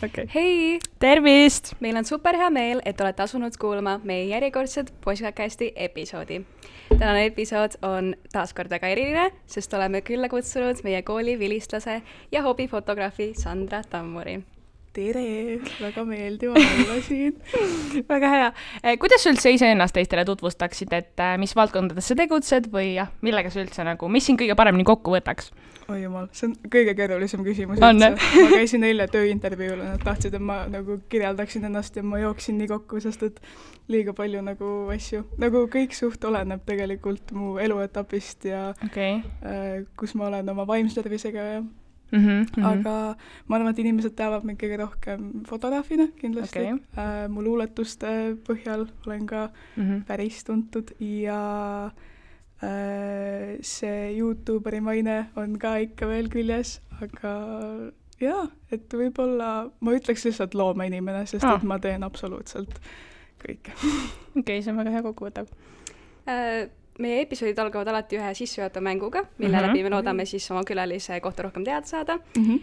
Okay. Hei! Tervist! Meil on super hea meel, et olete asunud kuulama meie järjekordset podcasti episoodi. Tänane episood on taaskord väga eriline, sest oleme külla kutsunud meie kooli vilistlase ja hobifotograafi Sandra Tammuri. Tere! Väga meeldiv olla siin. Väga hea. Kuidas sa üldse iseennast teistele tutvustaksid, et mis valdkondades sa tegutsed või millega sa üldse mis siin kõige paremini kokku võtaks? Oi jumal, see on kõige keerulisem küsimus üldse. Ma käisin eile tööintervjuul ja nad tahtsid, et ma kirjeldaksin ennast ja ma jooksin nii kokku, sest et liiga palju asju. Kõik suht oleneb tegelikult mu eluetapist ja kus ma olen oma vaimse tervisega ja aga ma arvan, et inimesed teavad mind kõige rohkem fotograafina kindlasti. Mu luuletuste põhjal olen ka päris tuntud ja see YouTuberi maine on ka ikka veel küljes, aga jaa, et võib-olla ma ütleks lihtsalt loomeinimene, sest et ma teen absoluutselt kõike. See on väga hea kokkuvõtav. Meie episoodid algavad alati ühe sissejuhatava mänguga, mille läbi me loodame siis oma külalise kohta rohkem teada saada.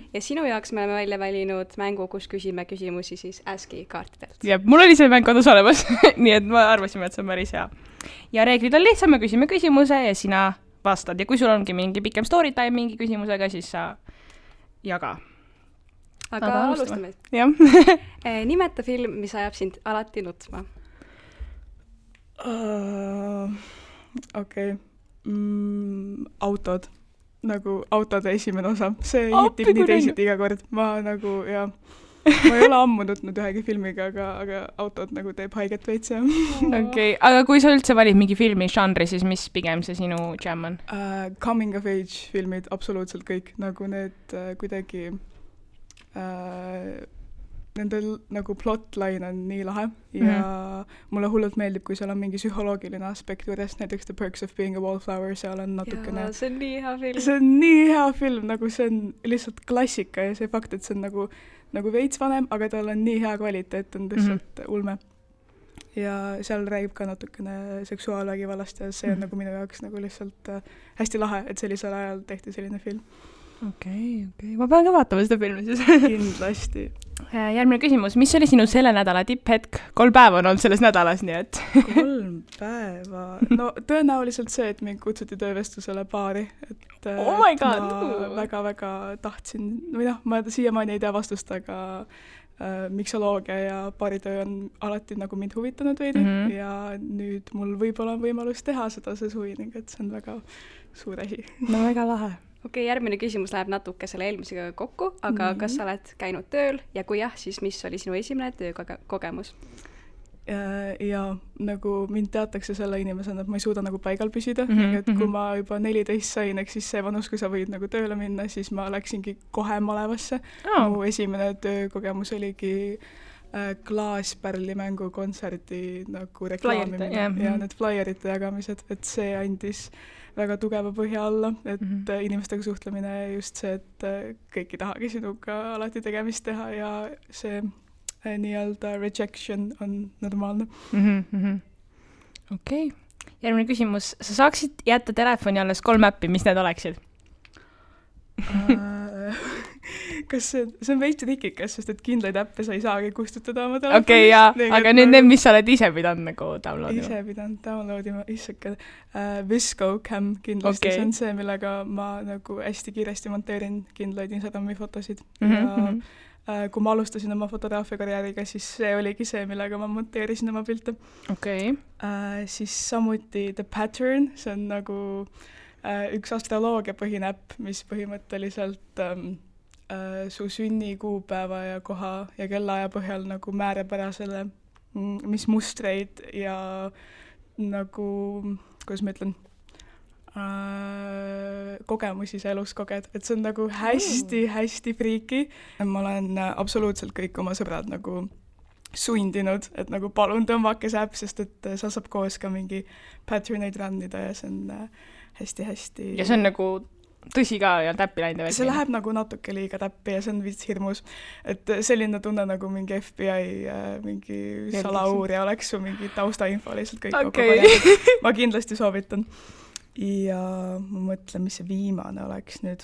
Ja sinu jaoks me oleme välja valinud mängu, kus küsime küsimusi siis ASCII kaartidelt. Ja mul oli see mäng kodus olemas, nii et ma arvasime, et see on päris hea. Ja reeglid on lihtsam, me küsime küsimuse ja sina vastad. Ja kui sul ongi mingi pikem story time mingi küsimusega, siis sa jaga. Aga alustame. Nimeta film, mis ajab sind alati nutma. Autod. Autode esimene osa. See hitib nii teisiti iga kord. Ma ei ole ammu nutnud ühegi filmiga, aga autod teeb haiget veits. Aga kui sa üldse valid mingi filmi žanri, siis mis pigem see sinu jam on? Coming of age filmid, absoluutselt kõik. Need kuidagi nende plotline on nii lahe ja mulle hullult meeldib, kui seal on mingi psühholoogiline aspekt juures, näiteks The Perks of Being a Wallflower, seal on natukene... See on nii hea film. See on nii hea film, see on lihtsalt klassika ja see fakt, et see on veits vanem, aga tal on nii hea kvaliteet, on lihtsalt ulme. Ja seal räägib ka natukene seksuaalvägivallast ja see on minu jaoks lihtsalt hästi lahe, et sellisel ajal tehti selline film. Ma pean ka vaatama seda filmi siis. Kindlasti. Järgmine küsimus, mis oli sinu selle nädala tipphetk? 3 päeva on olnud selles nädalas, nii et... 3 päeva? No tõenäoliselt see, et mind kutsuti töövestlusele baari. Oh my god! Ma väga-väga tahtsin, ma siiamaani ei tea vastust, aga miksoloogia ja baaritöö on alati mind huvitanud veidi ja nüüd mul võib-olla on võimalus teha seda see suvi, ning et see on väga suur asi. No väga lahe. Järgmine küsimus läheb natuke selle eelmisega kokku, aga kas sa oled käinud tööl ja kui jah, siis mis oli sinu esimene töökogemus? Ja mind teatakse selle inimesena, et ma ei suuda paigal püsida, et kui ma juba 14 sain, siis see vanus, kui sa võid tööle minna, siis ma läksingi kohe malevasse. Mu esimene töökogemus oligi Klaaspärli mängukontserdi reklaamimine ja need flyerite jagamised, et see andis väga tugeva põhja alla, et inimestega suhtlemine just see, et kõik ei tahagi sinuga alati tegemist teha ja see nii-öelda rejection on normaalne. Järgmine küsimus. Sa saaksid jätta telefoni alles 3 äppi, mis need oleksid? Kas see on veits rikikas, sest et kindlaid äppe sa ei saagi kustutada oma telefonis. Aga nüüd need, mis sa oled ise pidanud downloadima? Ise pidanud downloadima, issake. Visco Cam kindlasti, see on see, millega ma hästi kiiresti monteerin kindlaid Instagrami fotosid. Ja kui ma alustasin oma fotograafia karjääriga, siis see oligi see, millega ma monteerisin oma pilte. Siis samuti The Pattern, see on üks astroloogia põhine äpp, mis põhimõtteliselt su sünni kuupäeva ja koha ja kellaaja põhjal määrab ära selle, mis mustreid ja kuidas ma ütlen, kogemusi sa elus koged. Et see on hästi friiki. Ma olen absoluutselt kõik oma sõbrad sundinud, et palun tõmbake see äpp, sest et sa saab koos ka mingi patterneid rannida ja see on hästi-hästi... Ja see on tõsi ka ja täppi läinud? See läheb natuke liiga täppi ja see on vist hirmus. Et selline tunne mingi FBI mingi salauurija oleks su mingi taustainfo lihtsalt kõik kokku paneb. Ma kindlasti soovitan. Ja ma mõtlen, mis see viimane oleks nüüd.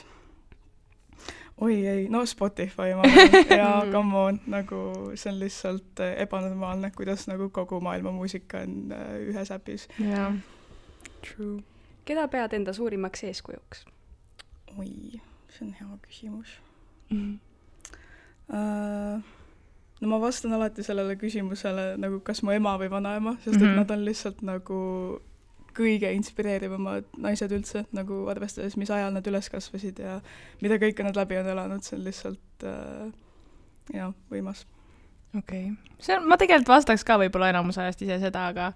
oi ei, no Spotify ma olen ja come on, nagu see on lihtsalt ebanormaalne, kuidas nagu kogu maailma muusika on ühes äpis. jaa, true. Keda pead enda suurimaks eeskujuks? Oi, see on hea küsimus. No ma vastan alati sellele küsimusele nagu kas mu ema või vanaema, sest et nad on lihtsalt nagu kõige inspireerivamad naised üldse, nagu arvestades, mis ajal nad üles kasvasid ja mida kõike nad läbi on elanud, see on lihtsalt võimas. Okei. Ma tegelikult vastaks ka võib-olla enamus ajast ise seda, aga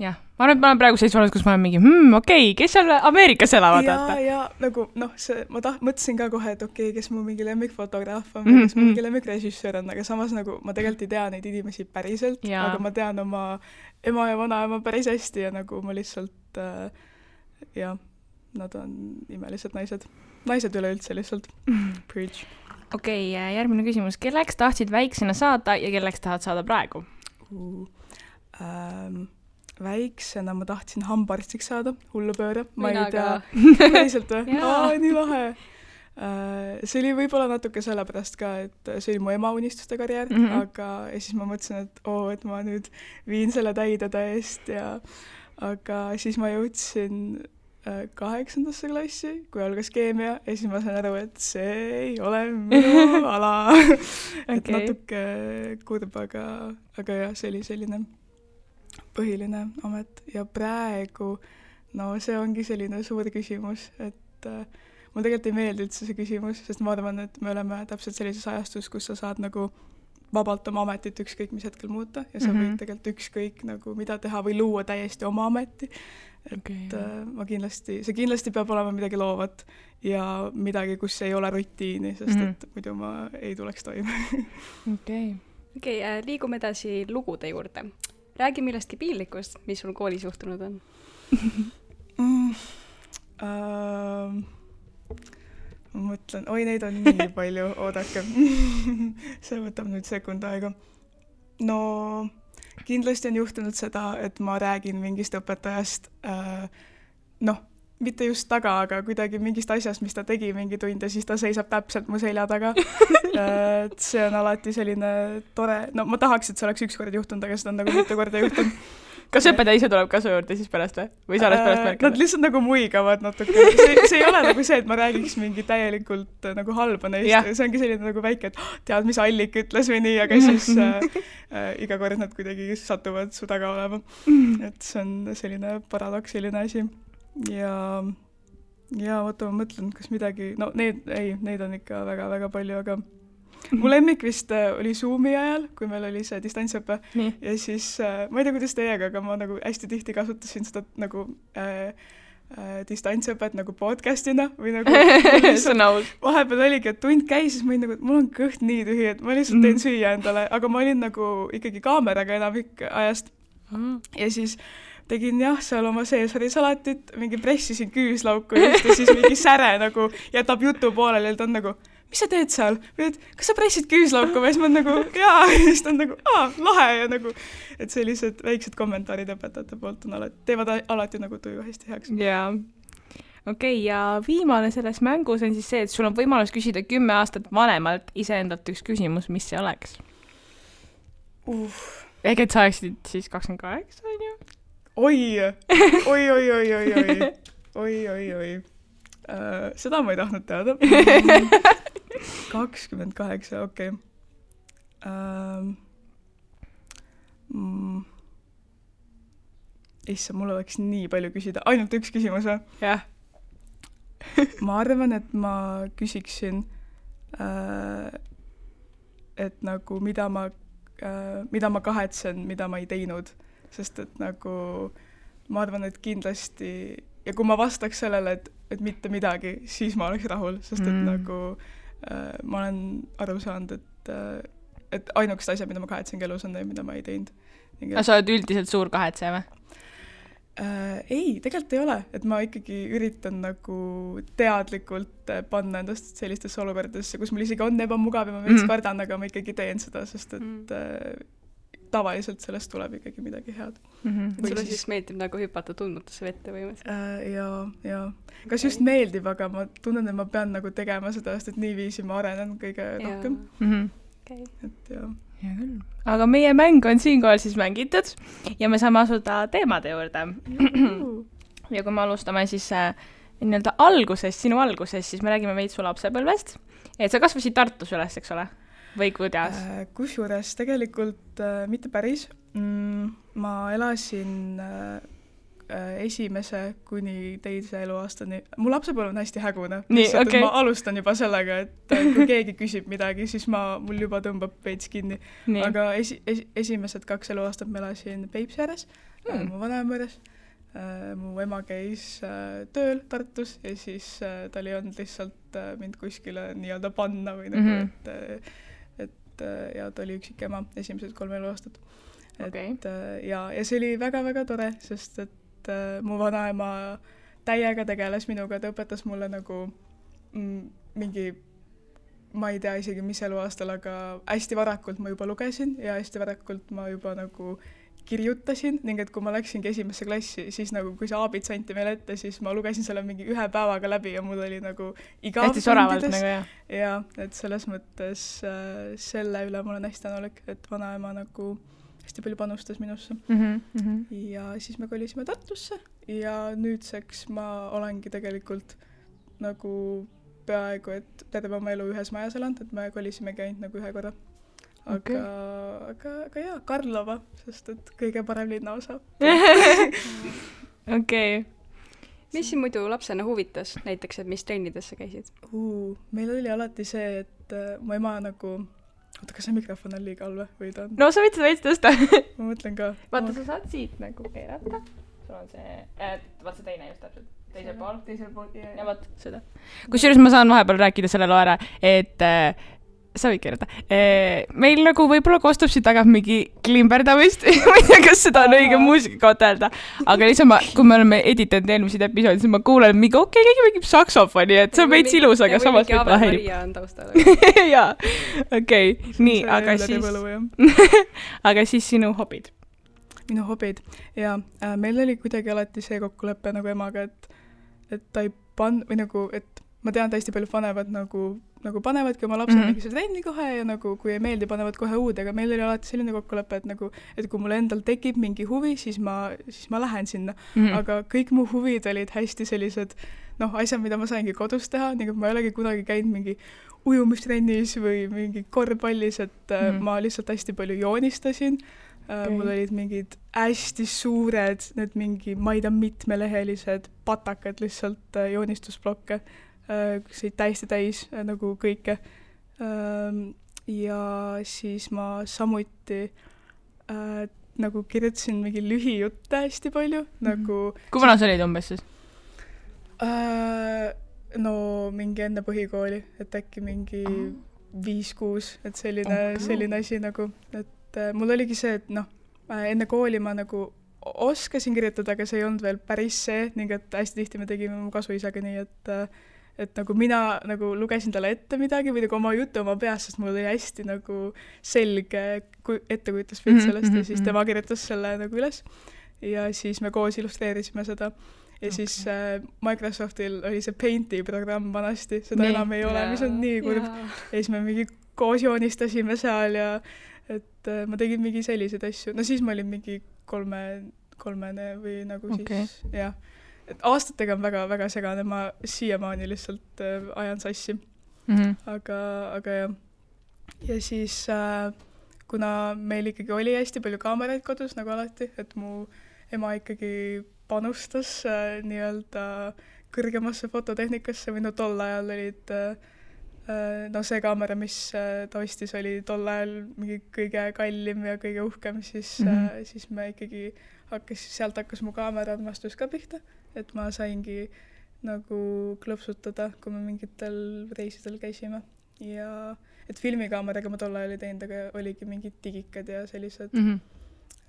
jah, ma arvan, et ma olen praegu sellises vanus, kus ma olen mingi, okei, kes seal Ameerikas elavad? Ja nagu, ma mõtlesin ka kohe, et okei, kes mu mingi lemmikfotograaf on, kes mu mingi lemmikrežissöör on, aga samas nagu ma tegelikult ei tea neid inimesi päriselt, aga ma tean oma ema ja vanaema päris hästi ja nagu ma lihtsalt, nad on imelised naised. Naised üleüldse lihtsalt. Preach. Okei, järgmine küsimus. Kelleks tahtsid väiksena saada ja kelleks tahad saada praegu? Väiksena ma tahtsin hambaarstiks saada, hullupööre. Ma Mina ei tea. Päriselt või? Nii lahe. See oli võib-olla natuke sellepärast ka, et see oli mu ema unistuste karjäär, aga siis ma mõtlesin, et ma nüüd viin selle täide täiest aga siis ma jõudsin 8. klassi, kui algas keemia ja siis ma sain aru, et see ei ole minu ala. Et natuke kurb, aga jah, see oli selline põhiline amet ja praegu, see ongi selline suur küsimus, et mul tegelikult ei meeldi üldse see küsimus, sest ma arvan, et me oleme täpselt sellises ajastus, kus sa saad nagu vabalt oma ametit ükskõik mis hetkel muuta ja sa võid tegelikult ükskõik nagu mida teha või luua täiesti oma ameti. Et see kindlasti peab olema midagi loovat ja midagi, kus ei ole rutiini, sest et muidu ma ei tuleks toime. Okei, liigume edasi lugude juurde. Räägi millestki piinlikust, mis sul koolis juhtunud on. Ma mõtlen, neid on nii palju, oodake. See võtab nüüd sekund aega. No, kindlasti on juhtunud seda, et ma räägin mingist õpetajast, mitte just taga, aga kuidagi mingist asjast, mis ta tegi mingi tund ja siis ta seisab täpselt mu selja taga. See on alati selline tore, ma tahaks, et see oleks üks kord juhtunud, aga seda on nagu mitu korda juhtunud. Kas õpetaja ise tuleb kasu juurde siis pärast või? Või sa oled pärast märkanud? Nad lihtsalt nagu muigavad natuke. See ei ole nagu see, et ma räägiks mingi täielikult nagu halba neist. See ongi selline nagu väike, et tead, mis Allik ütles või nii, aga siis iga kord nad kuidagi satuvad su taga olema. Et see on selline paradoksiline asi. Ja oota, ma mõtlen, kas midagi... neid on ikka väga-väga palju, aga mu lemmik vist oli Zoomi ajal, kui meil oli see distantsõpe. Ja siis, ma ei tea, kuidas teiega, aga ma nagu hästi tihti kasutasin seda nagu distantsõpet nagu podcastina või nagu vahepeal oligi, et tund käis, siis ma olin nagu, et mul on kõht nii tühi, et ma lihtsalt teen süüa endale, aga ma olin nagu ikkagi kaameraga enamik ajast. Ja siis tegin seal oma seesarisalatit, mingi pressisin küüslauku ja siis mingi säre nagu jätab jutu pooleli ja ta on nagu, mis sa teed seal? Või et, kas sa pressid küüslauku? Ja siis ma nagu, ja siis ta on nagu, lahe ja nagu, et sellised väiksed kommentaarid õpetajate poolt on teevad alati nagu tuju hästi heaks. Jaa. Okei, ja viimane selles mängus on siis see, et sul on võimalus küsida 10 aastat vanemalt iseendalt üks küsimus, mis see oleks? Ehk et sa oleksid siis 28, on ju? Oi. Seda ma ei tahtnud teada. 28, okei. Issa, mul oleks nii palju küsida. Ainult üks küsimus või? Jah. Ma arvan, et ma küsiksin, et nagu mida ma kahetsen, mida ma ei teinud. Sest et nagu ma arvan, et kindlasti ja kui ma vastaks sellele, et mitte midagi, siis ma oleks rahul, sest et nagu ma olen aru saanud, et ainukest asja, mida ma kahetsengi elus on, mida ma ei teinud. Aga sa oled üldiselt suur kahetse või? Ei, tegelikult ei ole, et ma ikkagi üritan nagu teadlikult panna endast sellistesse olukordadesse, kus mul isegi on ebamugav ja ma veits kardan, aga ma ikkagi teen seda, sest et tavaliselt sellest tuleb ikkagi midagi head. Sulle siis meeldib nagu hüpata tundmatusse vette põhimõtteliselt? Ja kas just meeldib, aga ma tunnen, et ma pean nagu tegema seda, sest et niiviisi ma arenen kõige rohkem. Okay. Et jah. Hea küll. Aga meie mäng on siinkohal siis mängitud ja me saame asuda teemade juurde. Ja kui me alustame siis nii-öelda sinu algusest, siis me räägime veits su lapsepõlvest. Et sa kasvasid Tartus üles, eks ole? Või kuidas? Kusjuures tegelikult mitte päris. Ma elasin esimese kuni teise eluaastani. Mu lapsepõlv on hästi hägune. Okay. Ma alustan juba sellega, et kui keegi küsib midagi, siis mul juba tõmbab veits kinni. Nii. Aga esimesed 2 eluaastat ma elasin Peipsi ääres, mu vanaema juures. Mu ema käis tööl Tartus ja siis tal ei olnud lihtsalt mind kuskile nii-öelda panna või nagu, et ta oli üksik ema esimesed 3 eluaastat. Okay. Ja see oli väga-väga tore, sest et mu vanaema täiega tegeles minuga, ta õpetas mulle nagu mingi, ma ei tea isegi mis eluaastal, aga hästi varakult ma juba lugesin ja hästi varakult ma juba nagu kirjutasin, ning et kui ma läksingi esimesse klassi, siis nagu kui see aabits anti meile ette, siis ma lugesin selle mingi 1 päevaga läbi ja mul oli nagu igav hästi soravalt nagu, jah. Ja, et selles mõttes selle üle ma olen hästi tänulik, et vanaema nagu hästi palju panustas minusse. Ja siis me kolisime Tartusse ja nüüdseks ma olengi tegelikult nagu peaaegu, et terve oma elu ühes majas elanud, et me kolisimegi ainult nagu 1 korra. Aga jaa, Karlova, sest et kõige parem linnaosa. Okei. Mis siin muidu lapsena huvitas näiteks, et mis trennidesse käisid? Meil oli alati see, et mu ema nagu... Oota, kas see mikrofon on liiga all või ta on? No sa võid seda veits tõsta. Ma mõtlen ka. Vaata, sa saad siit nagu keerata. Sul on see... Vaat see teine just täpselt. Teisel pool. Ja vaat seda. Kusjuures ma saan vahepeal rääkida selle loo ära, et... Sa võid keerata. Meil nagu võib-olla kostub siit taga mingi klimberdamist. Ma ei tea, kas seda on õige muusika öelda. Aga lihtsalt kui me oleme editanud eelmiseid episoodi, siis ma kuulen mingi, keegi mingib saksofoni, et see on veits ilus, aga samas võib-olla häirib. Ja on taustal. Jaa, okei. Nii, aga siis... Aga siis sinu hobid? Minu hobid? Jaa, meil oli kuidagi alati see kokkulepe nagu emaga, et ta ei või nagu, et ma tean, et hästi palju panevad nagu panevadki oma lapsed mingi see trenni kohe ja nagu kui ei meeldi, panevad kohe uude, aga meil oli alati selline kokkulepe, et kui mul endal tekib mingi huvi, siis ma lähen sinna. Aga kõik mu huvid olid hästi sellised, asjad, mida ma saingi kodus teha, nii et ma ei olegi kunagi käinud mingi ujumistrennis või mingi korvpallis, et ma lihtsalt hästi palju joonistasin. Mul olid mingid hästi suured, need mingi, ma ei tea, mitmelehelised patakad lihtsalt joonistusblokke. See oli täiesti täis nagu kõike. Ja siis ma samuti nagu kirjutasin mingi lühijutte hästi palju. Kui vana sa olid umbes siis? No mingi enne põhikooli, et äkki mingi 5-6, et selline asi nagu, et mul oligi see, et enne kooli ma nagu oskasin kirjutada, aga see ei olnud veel päris see, ning et hästi tihti me tegime mu kasuisaga nii, et nagu mina nagu lugesin talle ette midagi või nagu oma jutu oma peas, sest mul oli hästi nagu selge ettekujutuspilt sellest ja siis tema kirjutas selle nagu üles ja siis me koos illustreerisime seda ja siis Microsoftil oli see Painti programm vanasti, seda enam ei ole, mis on nii kurb ja siis me mingi koos joonistasime seal ja et ma tegin mingi selliseid asju, no siis ma olin mingi kolmene või nagu siis, jah. Et aastatega on väga-väga segane, ma siiamaani lihtsalt ajan sassi. Aga jah. Ja siis, kuna meil ikkagi oli hästi palju kaameraid kodus, nagu alati, et mu ema ikkagi panustas nii-öelda kõrgemasse fototehnikasse või tol ajal olid see kaamera, mis ta ostis, oli tol ajal mingi kõige kallim ja kõige uhkem, siis me ikkagi sealt hakkas mu kaamera armastus ka pihta. Et ma saingi nagu klõpsutada, kui me mingitel reisidel käisime. Ja et filmikaameraga ma tol ajal ei teinud, aga oligi mingid digikad ja sellised.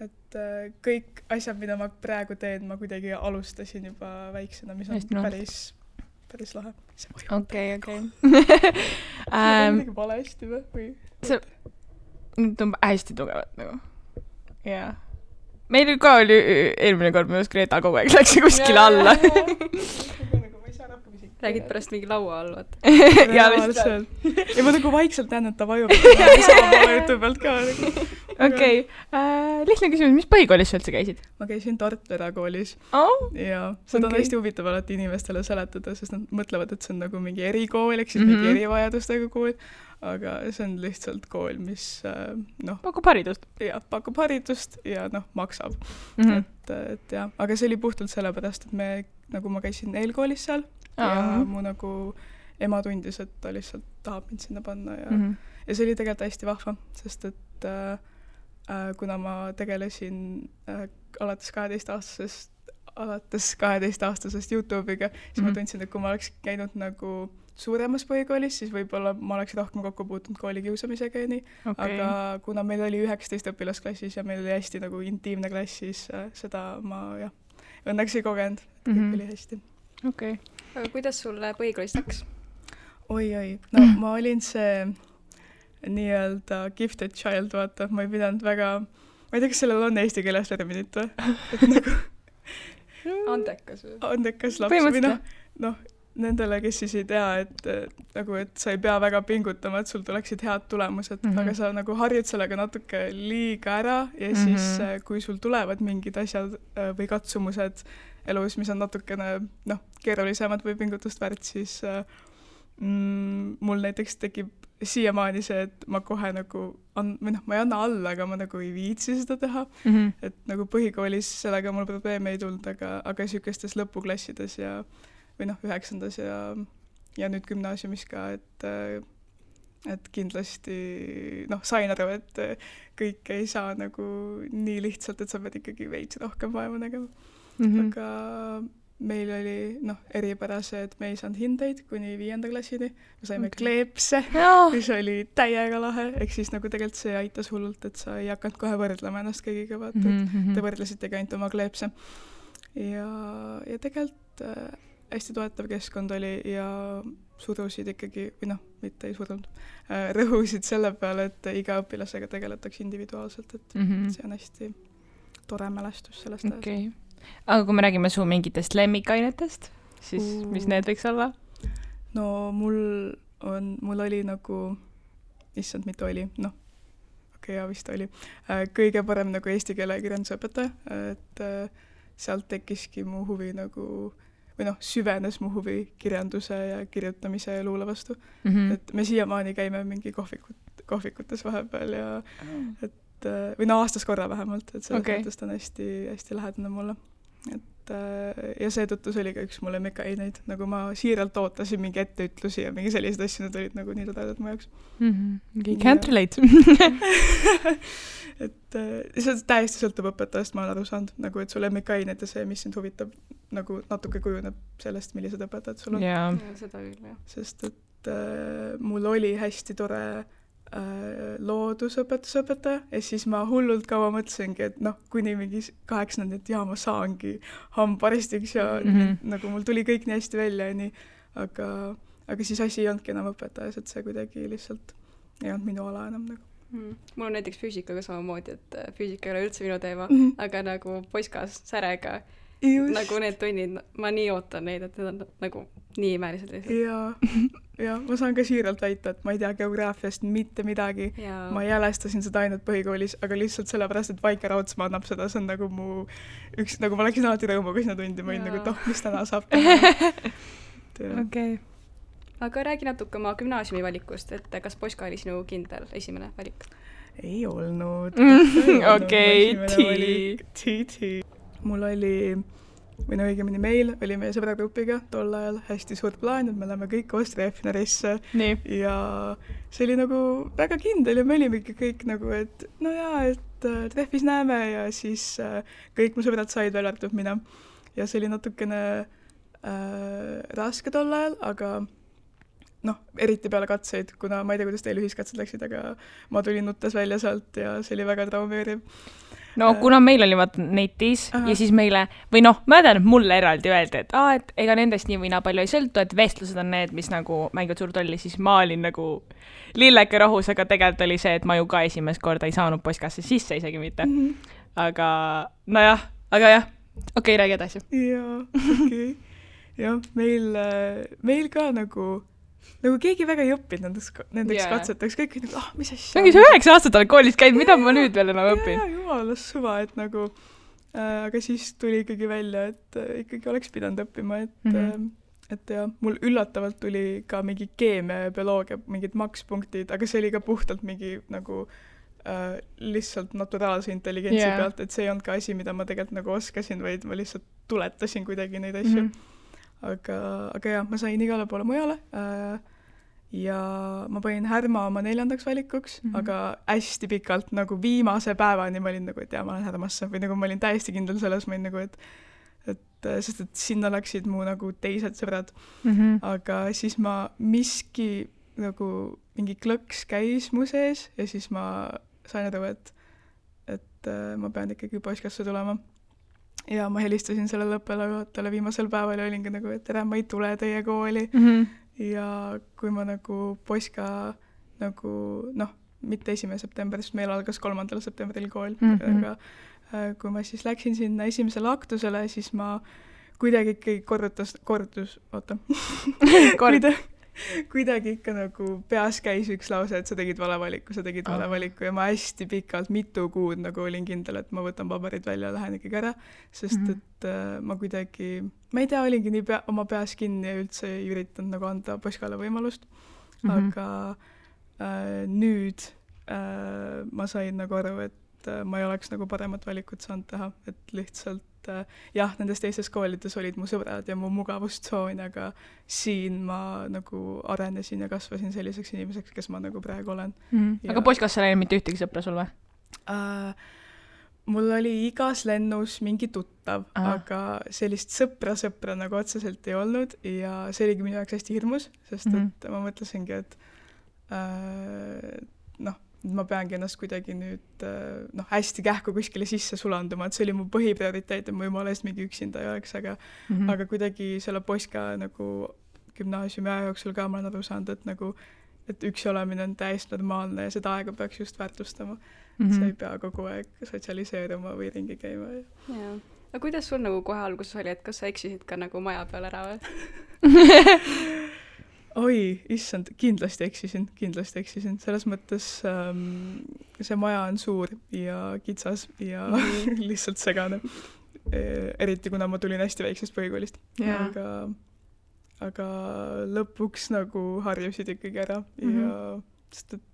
Et kõik asjad, mida ma praegu teen, ma kuidagi alustasin juba väiksena, mis on päris lahe. Okei. See on midagi valesti või? See tundub hästi tugevat nagu. jaa. Meil ka oli eelmine kord, minu Greta kogu aeg läks kuskile alla. Räägid pärast mingi laua all, vaata. Ja lihtsalt. Ja ma nagu vaikselt näen, et ta vajub. Sama poole jutu pealt ka. Okei. Lihtne küsimus, mis põhikoolis sa üldse käisid? Ma käisin Tartu erakoolis. Ja seda on hästi huvitav alati inimestele seletada, sest nad mõtlevad, et see on nagu mingi erikool, ehk siis mingi erivajadustega kool. Aga see on lihtsalt kool, mis pakub haridust. Ja, pakub haridust ja maksab. Et jah, aga see oli puhtalt sellepärast, et nagu ma käisin eelkoolis seal ja mu nagu ema tundis, et ta lihtsalt tahab mind sinna panna ja see oli tegelikult hästi vahva, sest et kuna ma tegelesin alates 12-aastasest YouTube'iga, siis ma tundsin, et kui ma oleks käinud nagu suuremas põhikoolis, siis võib-olla ma oleks rohkem kokku puutunud koolikiusamisega ja nii. Aga kuna meil oli 19 õpilasklassis ja meil oli hästi nagu intiimne klass, siis seda ma õnneks ei kogenud, et kõik oli hästi. Aga kuidas sulle põhikoolist läks? Oi. No ma olin see nii-öelda gifted child, vaata. Ma ei pidanud väga... Ma ei tea, kas sellel on eesti keeles terminit või? Et nagu... Andekas või? Andekas laps või nendele, kes siis ei tea, et sa ei pea väga pingutama, et sul tuleksid head tulemused, aga sa nagu harjud sellega natuke liiga ära ja siis kui sul tulevad mingid asjad või katsumused elus, mis on natukene keerulisemad või pingutust väärt, siis mul näiteks tekib siiamaani see, et ma kohe nagu ma ei anna alla, aga ma nagu ei viitsi seda teha. Et nagu põhikoolis sellega mul probleeme ei tulnud, aga sükestes lõpuklassides või 9. ja nüüd gümnaasiumis ka, et kindlasti sain aru, et kõik ei saa nagu nii lihtsalt, et sa pead ikkagi veits rohkem vaeva nägema. Aga meil oli eripärase, et me ei saanud hindeid kuni 5. klassini. Me saime kleepse, mis oli täiega lahe. Ehk siis nagu tegelikult see aitas hullult, et sa ei hakanud kohe võrdlema ennast kõigiga, vaata, et te võrdlesitegi ainult oma kleepse. Ja tegelikult hästi toetav keskkond oli ja surusid ikkagi, või mitte ei surunud, rõhusid selle peale, et iga õpilasega tegeletakse individuaalselt, et see on hästi tore mälestus sellest ajast. Aga kui me räägime su mingitest lemmikainetest, siis mis need võiks olla? No mul oli nagu, issand, mitte oli, vist oli, kõige parem nagu eesti keele kirjandusõpetaja, et sealt tekkiski mu huvi nagu, või süvenes mu huvi kirjanduse ja kirjutamise ja luule vastu. Et me siiamaani käime mingi kohvikutes vahepeal ja või aastas korra vähemalt, et selles mõttes ta on hästi, hästi lähedane mulle. Ja seetõttu see oli ka üks mulle mekaineid, nagu ma siiralt ootasin mingi etteütlusi ja mingi sellised asju, need olid nagu nii tadedad mu jaoks. Can't relate. Et see täiesti sõltub õpetajast, ma olen aru saanud, nagu et sulle mekaineid ja see, mis sind huvitab, nagu natuke kujuneb sellest, millised õpetajad sul on. Ja, seda küll, jah. Sest et mul oli hästi tore loodusõpetusõpetaja ja siis ma hullult kaua mõtlesingi, et kuni mingi 8. et ma saangi hambaristiks ja nagu mul tuli kõik nii hästi välja ja nii, aga siis asi ei olnudki enam õpetajas, et see kuidagi lihtsalt ei olnud minu ala enam nagu. Mul on näiteks füüsikaga samamoodi, et füüsika ei ole üldse minu teema, aga nagu poiskas särega nagu need tunnid, ma nii ootan neid, et need on nagu nii imelised lihtsalt. Ja ma saan ka siiralt väita, et ma ei tea geograafiast mitte midagi. Ma jälestasin seda ainult põhikoolis, aga lihtsalt sellepärast, et Vaike Raudsma annab seda, see on nagu mu üks, nagu ma läksin alati rõõmuga sinna tundi, ma olin nagu, mis täna saab teha. Aga räägi natuke oma gümnaasiumi valikust, et kas poiska oli sinu kindel esimene valik? Ei olnud. Mul oli, või õigemini meil oli meie sõbragrupiga tol ajal hästi suur plaan, et me oleme kõik Austria F-narisse ja see oli nagu väga kindel ja me olimegi kõik nagu, et et treffis näeme ja siis kõik mu sõbrad said veel arvatud mina ja see oli natukene raske tol ajal, aga eriti peale katseid, kuna ma ei tea, kuidas teil ühiskatsed läksid, aga ma tulin nuttes välja sealt ja see oli väga traumeeriv. Kuna meil oli netis ja siis meile, või ma tean, et mulle eraldi öeldi, et ega nendest nii või naa palju ei sõltu, et vestlused on need, mis nagu mängivad suurt rolli, siis ma olin nagu lilleke rohus, aga tegelikult oli see, et ma ju ka esimest korda ei saanud poiskasse sisse isegi mitte. aga nojah, okei, räägi edasi. jaa, okei. jah, meil ka nagu keegi väga ei õppinud nendeks katseteks, kõik nagu, mis asja. Ongi see 9 aastat olen koolis käinud, mida ma nüüd veel enam õpin? Jumalas suva, et nagu, aga siis tuli ikkagi välja, et ikkagi oleks pidanud õppima, et ja mul üllatavalt tuli ka mingi keemia ja bioloogia, mingid makspunktid, aga see oli ka puhtalt mingi nagu lihtsalt naturaalse intelligentsi pealt, et see ei olnud ka asi, mida ma tegelikult nagu oskasin, vaid ma lihtsalt tuletasin kuidagi neid asju. Aga jah, ma sain igale poole mujale ja ma panin Härma oma 4. valikuks, aga hästi pikalt nagu viimase päevani ma olin nagu, et ma olen Härmasse või nagu ma olin täiesti kindel selles, ma olin nagu, sest et sinna läksid mu nagu teised sõbrad. Aga siis ma miski nagu mingi klõks käis mu sees ja siis ma sain aru, et ma pean ikkagi poiskasse tulema. Ja ma helistasin sellele õppelajuhatajale viimasel päeval ja olingi nagu, et tere, ma ei tule teie kooli. Ja kui ma nagu poiska nagu, mitte 1. september, sest meil algas 3. septembril kool, aga kui ma siis läksin sinna esimesele aktusele, siis ma kuidagi ikkagi kuidagi ikka nagu peas käis üks lause, et sa tegid vale valiku ja ma hästi pikalt, mitu kuud nagu olin kindel, et ma võtan paberid välja ja lähen ikkagi ära, sest et ma kuidagi, ma ei tea, olingi nii oma peas kinni ja üldse ei üritanud nagu anda poiskale võimalust, aga nüüd ma sain nagu aru, et ma ei oleks nagu paremat valikut saanud teha, et lihtsalt jah, nendes teistes koolides olid mu sõbrad ja mu mugavustsoon, aga siin ma nagu arenesin ja kasvasin selliseks inimeseks, kes ma nagu praegu olen. Aga poiskasse ei mitte ühtegi sõpra sul või? Mul oli igas lennus mingi tuttav, aga sellist sõpra nagu otseselt ei olnud ja see oligi minu jaoks hästi hirmus, sest et ma mõtlesingi, et ma peangi ennast kuidagi nüüd hästi kähku kuskile sisse sulanduma, et see oli mu põhiprioriteet, et ma jumala eest mingi üksinda ei oleks, aga kuidagi selle poiska nagu gümnaasiumi aja jooksul ka ma olen aru saanud, et nagu, et üksi olemine on täiesti normaalne ja seda aega peaks just väärtustama. Sa ei pea kogu aeg sotsialiseeruma või ringi käima. Jaa. Aga kuidas sul nagu kohe alguses oli, et kas sa eksisid ka nagu maja peal ära või? Oi, issand, kindlasti eksisin. Selles mõttes see maja on suur ja kitsas ja lihtsalt segane. Eriti kuna ma tulin hästi väiksest põhikoolist. Aga lõpuks nagu harjusid ikkagi ära ja sest et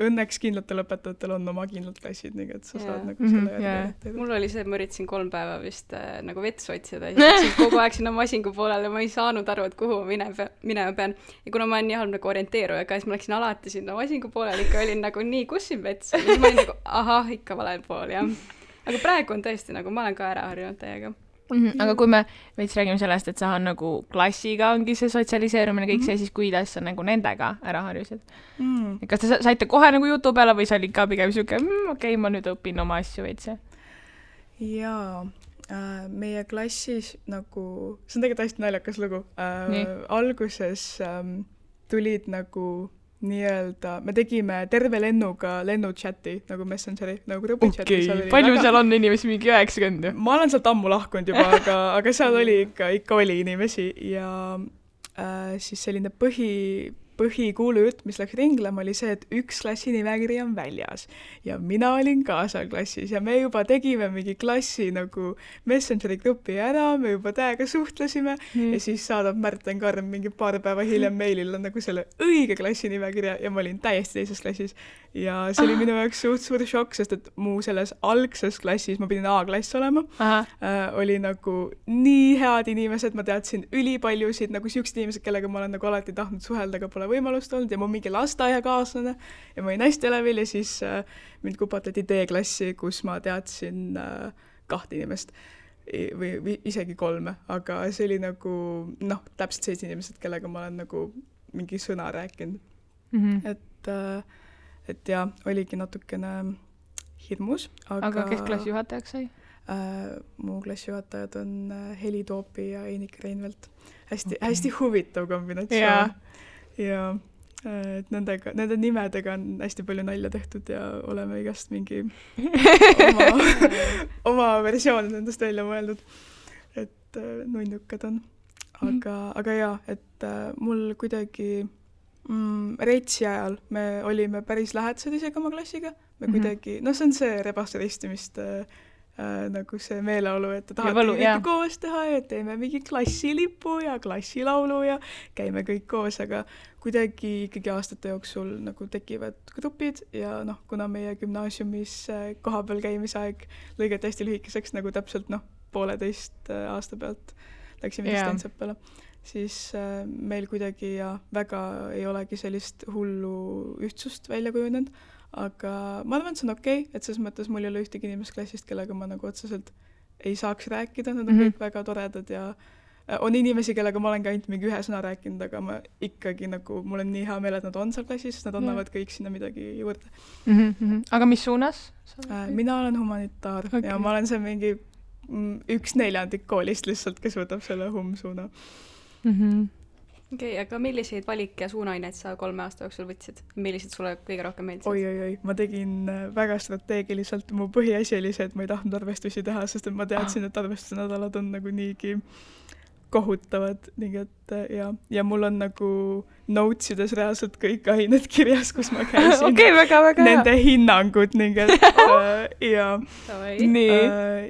õnneks kindlatel õpetajatel on oma kindlad klassid, nii et sa saad nagu selle järgi. Mul oli see, ma üritasin 3 päeva vist nagu vets otsida ja siis kogu aeg sinna masingu poolele, ma ei saanud aru, et kuhu ma minema pean. Ja kuna ma olen nii halb nagu orienteeruja, siis ma läksin alati sinna masingu poolele, ikka olin nagu nii, kus siin vets on? Ja ma olin nagu, ikka valel pool, jah. Aga praegu on tõesti nagu, ma olen ka ära harjunud täiega. Aga kui me veits räägime sellest, et sa on nagu klassiga ongi see sotsialiseerumine kõik see, siis kuidas sa nagu nendega ära harjusid? Kas te saite kohe nagu jutu peale või sa olid ka pigem siuke, okei, ma nüüd õpin oma asju veits? Jaa, meie klassis nagu, see on tegelikult hästi naljakas lugu. Alguses tulid nagu nii-öelda, me tegime terve lennuga lennuchati, nagu Messengeri, nagu grupichati. Okei, palju seal on inimesi, mingi 90? Ma olen sealt ammu lahkunud juba, aga seal oli ikka oli inimesi ja siis selline põhikuulujutt, mis läks ringlema, oli see, et üks klassi nimekiri on väljas ja mina olin ka seal klassis ja me juba tegime mingi klassi nagu Messengeri grupi ära, me juba täiega suhtlesime ja siis saadab Märten Karm mingi paar päeva hiljem meilile nagu selle õige klassi nimekirja ja ma olin täiesti teises klassis ja see oli minu jaoks suur šokk, sest et mu selles algses klassis, ma pidin A-klass olema, oli nagu nii head inimesed, ma teadsin ülipaljusid nagu siuksed inimesed, kellega ma olen nagu alati tahtnud suhelda, aga pole võimalust olnud ja mu mingi lasteaiakaaslane ja ma olin hästi elevil ja siis mind kupatati D-klassi, kus ma teadsin 2 inimest või isegi 3, aga see oli nagu täpselt 7 inimesed, kellega ma olen nagu mingi sõna rääkinud. Et ja, oligi natukene hirmus. Aga kes klassijuhatajaks sai? Mu klassijuhatajad on Heli Toopi ja Einik Reinvelt. Hästi huvitav kombinatsioon. Ja et nende nimedega on hästi palju nalja tehtud ja oleme igast mingi oma versioonid nendest välja mõeldud, et nunnukad on. Aga jaa, et mul kuidagi Reitsi ajal me olime päris lähedased isegi oma klassiga, me kuidagi, see on see rebaste ristimist nagu see meeleolu, et te tahate kõike koos teha ja teeme mingi klassilipu ja klassilaulu ja käime kõik koos, aga kuidagi ikkagi aastate jooksul nagu tekivad grupid ja kuna meie gümnaasiumis kohapeal käimisaeg lõigati hästi lühikeseks, nagu täpselt 1,5 aasta pealt läksime distantsõppele, siis meil kuidagi väga ei olegi sellist hullu ühtsust välja kujunenud. Aga ma arvan, et see on okei, et selles mõttes mul ei ole ühtegi inimest klassist, kellega ma nagu otseselt ei saaks rääkida, nad on kõik väga toredad ja on inimesi, kellega ma olen ka ainult mingi 1 sõna rääkinud, aga ma ikkagi nagu, mul on nii hea meel, et nad on seal klassis, sest nad annavad kõik sinna midagi juurde. Aga mis suunas? Mina olen humanitaar ja ma olen see mingi 1/4 koolist lihtsalt, kes võtab selle suuna. Okei, aga milliseid valik- ja suunaineid sa 3 aasta jooksul võtsid? Millised sulle kõige rohkem meeldisid? Oi, ma tegin väga strateegiliselt. Mu põhiasi oli see, et ma ei tahtnud arvestusi teha, sest et ma teadsin, et arvestuse nädalad on nagu niigi kohutavad. Nii et ja mul on nagu notesides reaalselt kõik ained kirjas, kus ma käisin. Okei, väga nende hinnangud. Nii et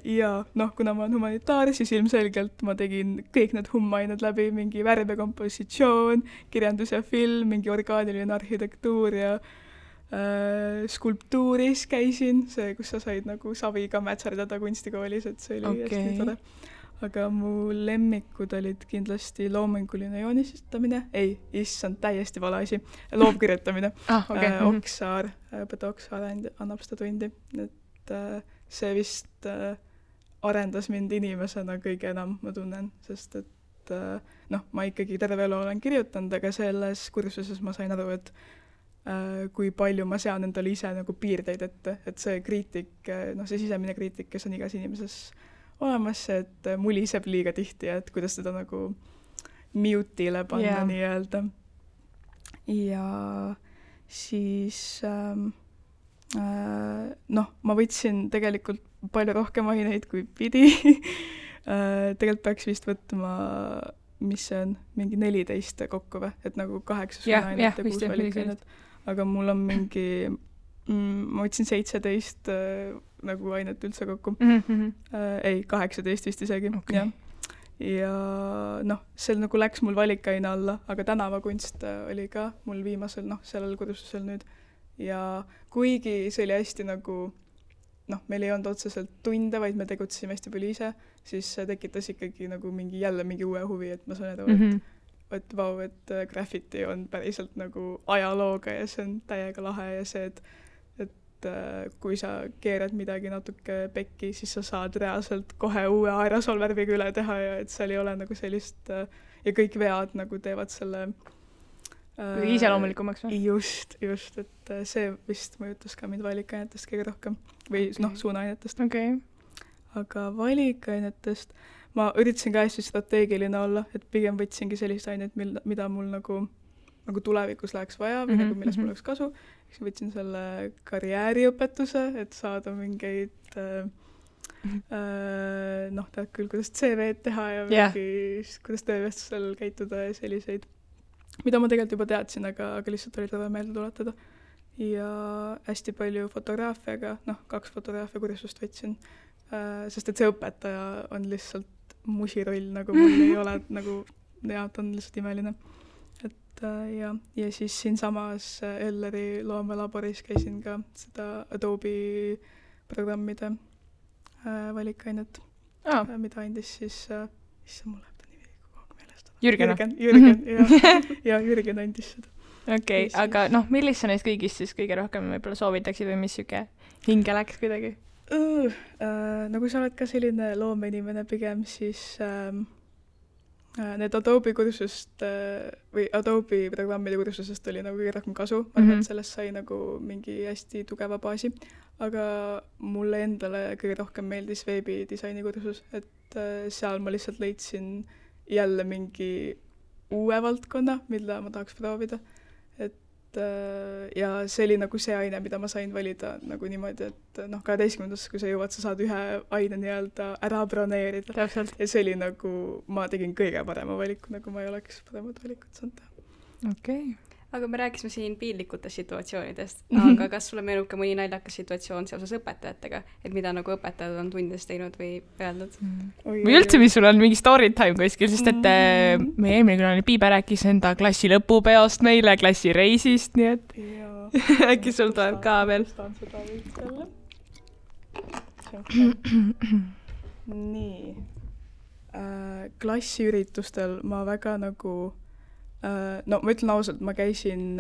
ja kuna ma olen humanitaar, siis ilmselgelt ma tegin kõik need hummained läbi, mingi värv ja kompositsioon, kirjandus ja film, mingi orgaaniline arhitektuur ja skulptuuris käisin, see, kus sa said nagu saviga mätserdada kunstikoolis, et see oli hästi tore. Aga mu lemmikud olid kindlasti loominguline joonistamine, issand, täiesti vale asi, loovkirjutamine. Oksaar, õpetaja Oksaar annab seda tundi, et see vist arendas mind inimesena kõige enam, ma tunnen, sest et ma ikkagi terve elu olen kirjutanud, aga selles kursuses ma sain aru, et kui palju ma sean endale ise nagu piirdeid ette, et see kriitik, see sisemine kriitik, kes on igas inimeses olemas, et muliseb liiga tihti ja et kuidas seda nagu mute'ile panna nii-öelda. Ja siis ma võtsin tegelikult palju rohkem aineid kui pidi. Tegelikult peaks vist võtma, mis see on, mingi 14 kokku või, et nagu 8 ainet ja 6 valikainet. Aga mul on mingi ma võtsin 17 nagu ainet üldse kokku. 18 vist isegi. Okay. Ja see nagu läks mul valikaine alla, aga tänavakunst oli ka mul viimasel, sellel kursusel nüüd. Ja kuigi see oli hästi nagu, meil ei olnud otseselt tunde, vaid me tegutsime hästi palju ise, siis see tekitas ikkagi nagu jälle mingi uue huvi, et ma sain aru, et vau, et graffiti on päriselt nagu ajalooga ja see on täiega lahe ja see, et kui sa keerad midagi natuke pekki, siis sa saad reaalselt kohe uue aerosolvärviga üle teha ja et seal ei ole nagu sellist ja kõik vead nagu teevad selle iseloomulikumaks või? Just, et see vist mõjutas ka mind valikainetest kõige rohkem või suunaainetest. Okay. Aga valikainetest ma üritasin ka hästi strateegiline olla, et pigem võtsingi sellist ainet, mida mul nagu tulevikus läheks vaja või nagu millest mul oleks kasu. Võtsin selle karjääriõpetuse, et saada mingeid tead küll, kuidas CV-d teha ja mingi, kuidas töövestusel käituda ja selliseid, mida ma tegelikult juba teadsin, aga lihtsalt oli tore meelde tuletada. Ja hästi palju fotograafiaga, 2 fotograafia kursust võtsin, sest et see õpetaja on lihtsalt musiroll, nagu mul ei ole, nagu ta on lihtsalt imeline. Ja siis siinsamas Elleri loomelaboris käisin ka seda Adobe programmide valikainet, mida andis siis, mul läheb ta nimi kogu meelest. Jürgen, Jürgen andis seda. Okei, aga millist sa neist kõigist siis kõige rohkem võib-olla soovitaksid või mis siuke hinge läks kuidagi? Kui sa oled ka selline loomeinimene pigem, siis need Adobe kursust või Adobe programmide kursusest oli nagu kõige rohkem kasu. Ma arvan, et sellest sai nagu mingi hästi tugeva baasi. Aga mulle endale kõige rohkem meeldis veebidisaini kursus, et seal ma lihtsalt leidsin jälle mingi uue valdkonna, mida ma tahaks proovida. Et ja see oli nagu see aine, mida ma sain valida nagu niimoodi, et 12. kui sa jõuad, sa saad ühe aine nii-öelda ära broneerida. Täpselt. Ja see oli nagu, ma tegin kõige parema valiku, nagu ma ei oleks paremat valikut saanud teha. Okei. Aga me rääkisime siin piinlikutest situatsioonidest, aga kas sulle meenub ka mõni naljakas situatsioon seoses õpetajatega, et mida nagu õpetajad on tundides teinud või öelnud? Või üldse, mis sul on mingi story time kuskil, sest et meie eelmine külaline Piibe rääkis enda klassi lõpupeost meile, klassi reisist, nii et äkki sul tuleb ka veel. Nii. Klassiüritustel ma väga nagu ma ütlen ausalt, ma käisin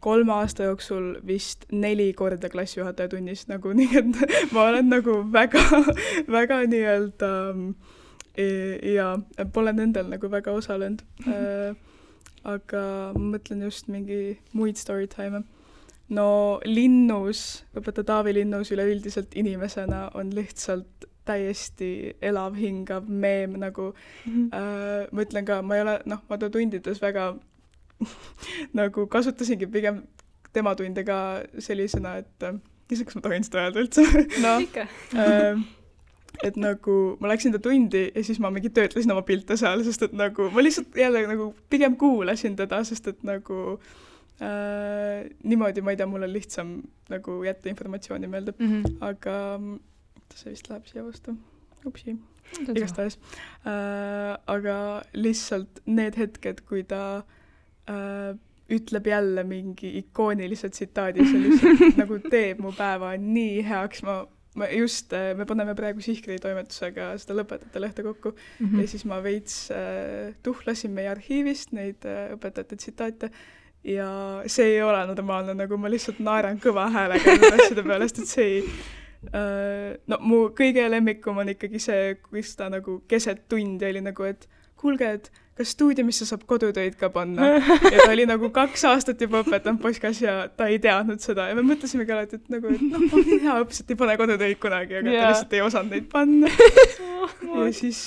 3 aasta jooksul vist 4 korda klassijuhataja tunnis, nagu nii, et ma olen nagu väga, väga nii-öelda ja pole nendel nagu väga osalenud. Aga ma mõtlen just mingi muid story time. No Linnus, õpetaja Taavi Linnus üleüldiselt inimesena on lihtsalt täiesti elav, hingav meem, nagu ma ütlen ka, ma ei ole, ma ta tundides väga nagu kasutasingi pigem tema tunde ka sellisena, et iseks ma tohin seda öelda üldse. Ikka. Et nagu ma läksin ta tundi ja siis ma mingi töötlesin oma pilte seal, sest et nagu ma lihtsalt jälle nagu pigem kuulasin teda, sest et nagu niimoodi, ma ei tea, mul on lihtsam nagu jätta informatsiooni meelde, aga see vist läheb siia vastu. Upsi. Igastahes. Aga lihtsalt need hetked, kui ta ütleb jälle mingi ikoonilise tsitaadi, see lihtsalt nagu teeb mu päeva nii heaks. Me paneme praegu Sihkri toimetusega seda lõpetajate lehte kokku ja siis ma veits tuhlasin meie arhiivist neid õpetajate tsitaate ja see ei ole normaalne, nagu ma lihtsalt naeran kõva häälega asjade pealest, et see ei mu kõige lemmikum on ikkagi see, kus ta nagu keset tundi oli nagu, et kuulge, et kas stuudiumisse saab kodutöid ka panna? Ja ta oli nagu 2 aastat juba õpetanud Poskas ja ta ei teadnud seda ja me mõtlesimegi alati, et nagu, et on hea õpsed, ei pane kodutöid kunagi, aga ta lihtsalt ei osanud neid panna. Ja siis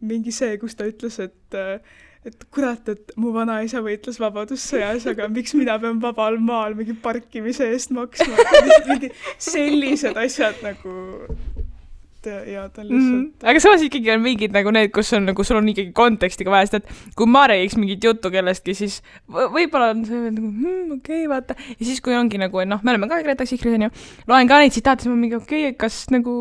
mingi see, kus ta ütles, et kurat, et mu vanaisa võitles vabadussõjas, aga miks mina pean vabal maal mingi parkimise eest maksma? Mingi sellised asjad nagu ja ta lihtsalt... Aga samas ikkagi on mingid nagu need, kus on nagu, sul on ikkagi kontekstiga vaja, sest et kui ma räägiks mingit juttu kellestki, siis võib-olla on see nagu, okei, vaata. Ja siis kui ongi nagu, me oleme ka Greta Sihkris, on ju, loen ka neid tsitaate, siis ma mingi, okei, kas nagu,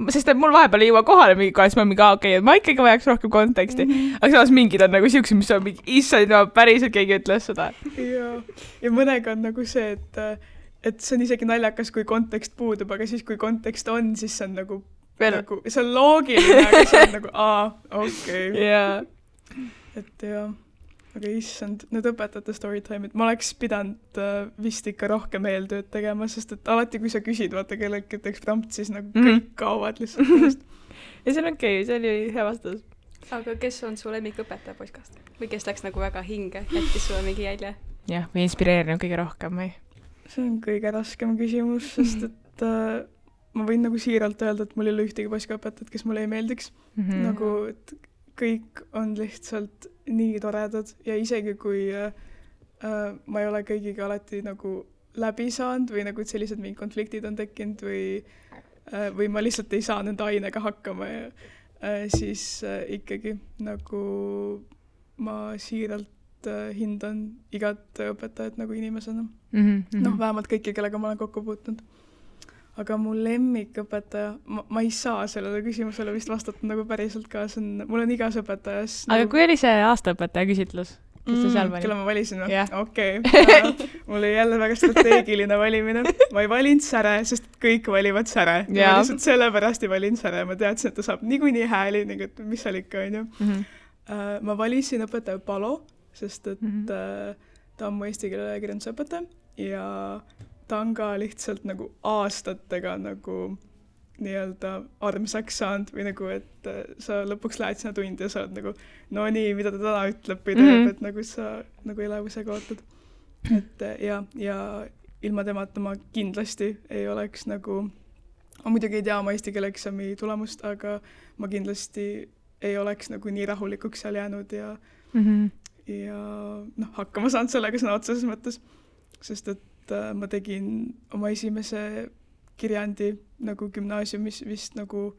sest et mul vahepeal ei jõua kohale mingi kohe, siis ma mingi, okei, ma ikkagi vajaks rohkem konteksti. Aga samas mingid on nagu siuksed, mis on mingi, issand, päriselt keegi ütles seda. Ja mõnega on nagu see, et see on isegi naljakas, kui kontekst puudub, aga siis kui kontekst on, siis see on nagu nagu, see on loogiline, aga see on nagu, okei. Yeah. Et aga issand, need õpetajate storytime'id, ma oleks pidanud vist ikka rohkem eeltööd tegema, sest et alati, kui sa küsid, vaata kellelgi teeks prompt, siis nagu kõik kaovad lihtsalt. Ja see on okei, see oli hea vastus. Aga kes on su lemmikõpetaja Poskast? Või kes läks nagu väga hinge, jättis sulle mingi jälje? Jah, või inspireerinud kõige rohkem või? See on kõige raskem küsimus, sest et ma võin nagu siiralt öelda, et mul ei ole ühtegi Poskaõpetajat, kes mulle ei meeldiks. Nagu, et kõik on lihtsalt nii toredad ja isegi kui ma ei ole kõigiga alati nagu läbi saanud või nagu sellised mingid konfliktid on tekkinud või ma lihtsalt ei saa nende ainega hakkama ja siis ikkagi nagu ma siiralt hindan igat õpetajat nagu inimesena. Vähemalt kõiki, kellega ma olen kokku puutunud. Aga mu lemmikõpetaja, ma ei saa sellele küsimusele vist vastata nagu päriselt ka, mul on igas õpetajas. Aga kui oli see aastaõpetaja küsitlus? Kelle ma valisin? Okei. Mul oli jälle väga strateegiline valimine. Ma ei valinud Säre, sest kõik valivad Säre. Ma lihtsalt sellepärast ei valinud Säre. Ma teadsin, et ta saab niikuinii hääli, mis seal ikka on ju. Ma valisin õpetaja Palo, sest et ta on mu eesti keele kirjandusõpetaja ja ta on ka lihtsalt nagu aastatega nagu nii-öelda armsaks saanud või nagu, et sa lõpuks lähed sinna tundi ja sa oled nagu, no nii, mida ta täna ütleb või teeb, et nagu sa nagu elevusega ootad. Et ja ilma temata ma kindlasti ei oleks nagu, ma muidugi ei tea oma eesti keele eksami tulemust, aga ma kindlasti ei oleks nagu nii rahulikuks seal jäänud ja noh, hakkama saanud sellega sõna otseses mõttes, sest et ma tegin oma esimese kirjandi nagu gümnaasiumis vist nagu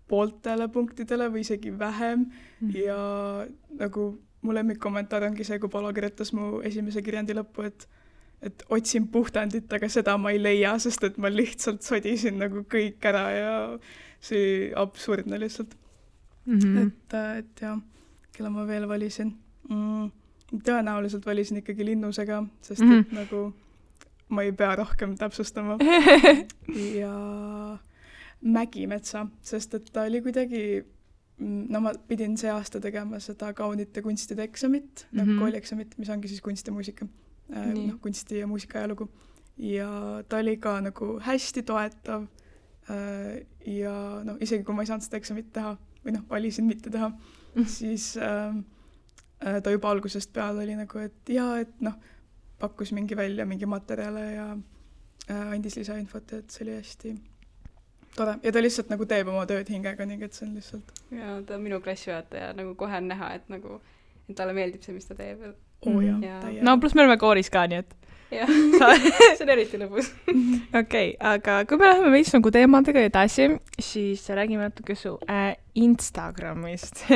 pooltele punktidele või isegi vähem ja nagu mu lemmikkommentaar ongi see, kui Palo kirjutas mu esimese kirjandi lõppu, et otsin puhtandit, aga seda ma ei leia, sest et ma lihtsalt sodisin nagu kõik ära ja see absurdne lihtsalt. Et jah, kelle ma veel valisin. Tõenäoliselt valisin ikkagi Linnusega, sest et nagu ma ei pea rohkem täpsustama. Ja Mägimetsa, sest et ta oli kuidagi, no ma pidin see aasta tegema seda kaunite kunstide eksamit, nagu koolieksamit, mis ongi siis kunst ja muusika, kunsti ja muusika ajalugu. Ja ta oli ka nagu hästi toetav ja no isegi kui ma ei saanud seda eksamit teha või noh, valisin mitte teha, siis ta juba algusest peale oli nagu, et jaa, et noh, pakkus mingi välja mingi materjale ja andis lisainfot, et see oli hästi tore. Ja ta lihtsalt nagu teeb oma tööd hingega, nii et see on lihtsalt... Ja ta on minu klassijuhataja, nagu kohe on näha, et nagu et talle meeldib see, mis ta teeb. No pluss me oleme kooris ka, nii et... Jah, see on eriti lõbus. Okei, aga kui me läheme veits nagu teemadega edasi, siis räägime natuke su Instagramist.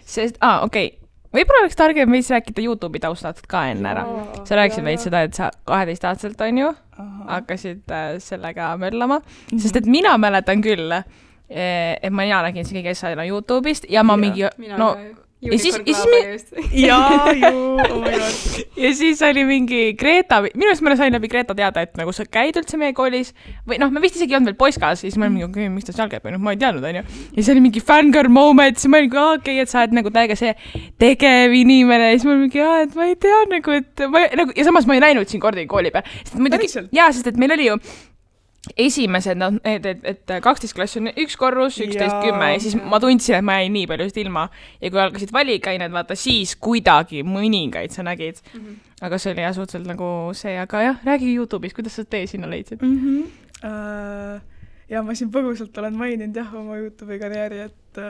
Sest, võib-olla oleks targem veits rääkida YouTube'i taustalt ka enne ära. Sa rääkisid veits seda, et sa 12-aastaselt on ju, hakkasid sellega möllama. Sest et mina mäletan küll, et ma nägin see kõige asjana YouTube'ist ja ma mingi... Ja siis oli mingi Greta, minu eest ma sain läbi Greta teada, et nagu sa käid üldse meie koolis või noh, me vist isegi ei olnud veel poiskas, siis ma olin mingi, miks ta seal käib, ma ei teadnud, on ju. Ja siis oli mingi fangirl moment, siis ma olin okei, et sa oled nagu täiega see tegev inimene ja siis ma olin mingi, et ma ei tea nagu, et ma, nagu, ja samas ma ei näinud siin kordagi kooli peal. Sest et meil oli ju esimesed, et 12 klass on üks korrus, 11-10 ja siis ma tundsin, et ma jäin nii palju ilma. Ja kui algasid valikained, vaata, siis kuidagi mõningaid sa nägid. Aga see oli jah suhteliselt nagu see, aga jah, räägi YouTube'is, kuidas sa tee sinna leidsid? Ja ma siin põgusalt olen maininud jah oma YouTube'i karjääri, et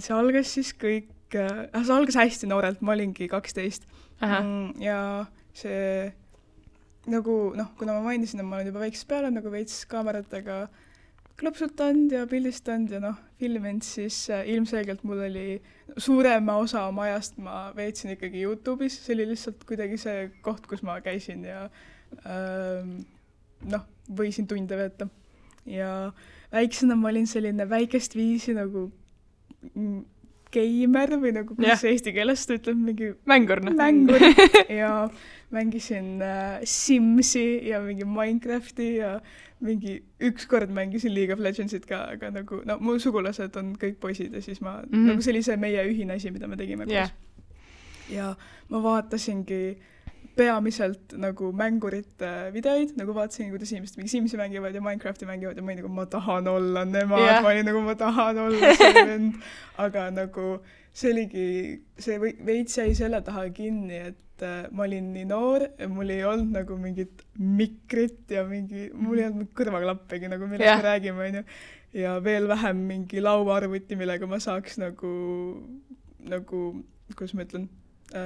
see algas siis kõik, see algas hästi noorelt, ma olingi 12. Ja see nagu, noh, kuna ma mainisin, et ma olen juba väiksest peale nagu veits kaameratega klõpsutanud ja pildistanud ja noh, filminud, siis ilmselgelt mul oli suurema osa oma ajast ma veetsin ikkagi YouTube'is, see oli lihtsalt kuidagi see koht, kus ma käisin ja noh, võisin tunde veeta. Ja väiksena ma olin selline väikest viisi nagu geimer või nagu kuidas eesti keeles ta ütleb, mingi mängur ja mängisin Simsi ja mingi Minecrafti ja mingi ükskord mängisin League of Legendsit ka, aga nagu, no mu sugulased on kõik poisid ja siis ma, nagu see oli see meie ühine asi, mida me tegime koos. Ja ma vaatasingi peamiselt nagu mängurite videoid, nagu vaatasin, kuidas inimesed mingi Simsi mängivad ja Minecrafti mängivad ja ma olin nagu, ma tahan olla nemad, ma olin nagu, ma tahan olla see vend, aga nagu see oligi, see veits jäi selle taha kinni, et ma olin nii noor ja mul ei olnud nagu mingit mikrit ja mingi, mul ei olnud kõrvaklappegi, nagu millest me räägime, on ju, ja veel vähem mingi lauaarvuti, millega ma saaks nagu, kuidas ma ütlen,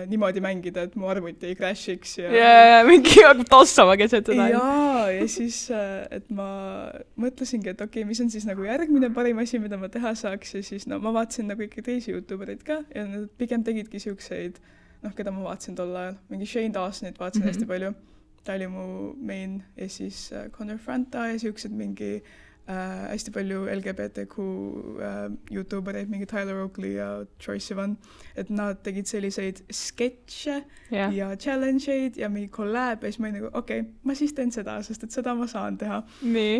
niimoodi mängida, et mu arvuti ei crashiks ja mingi tossama keset seda. Ja siis, et ma mõtlesingi, et okei, mis on siis nagu järgmine parim asi, mida ma teha saaks ja siis no ma vaatasin nagu ikka teisi YouTubereid ka ja nad pigem tegidki siukseid, noh, keda ma vaatasin tol ajal, mingi Shane Dawsonit vaatasin hästi palju, ta oli mu main ja siis Connor Franta ja siuksed mingi hästi palju LGBTQ YouTubereid, mingi Tyler Oakley ja Troye Sivan, et nad tegid selliseid sketše ja challenge'id ja mingi collab ja siis ma olin nagu, okei, ma siis teen seda, sest et seda ma saan teha.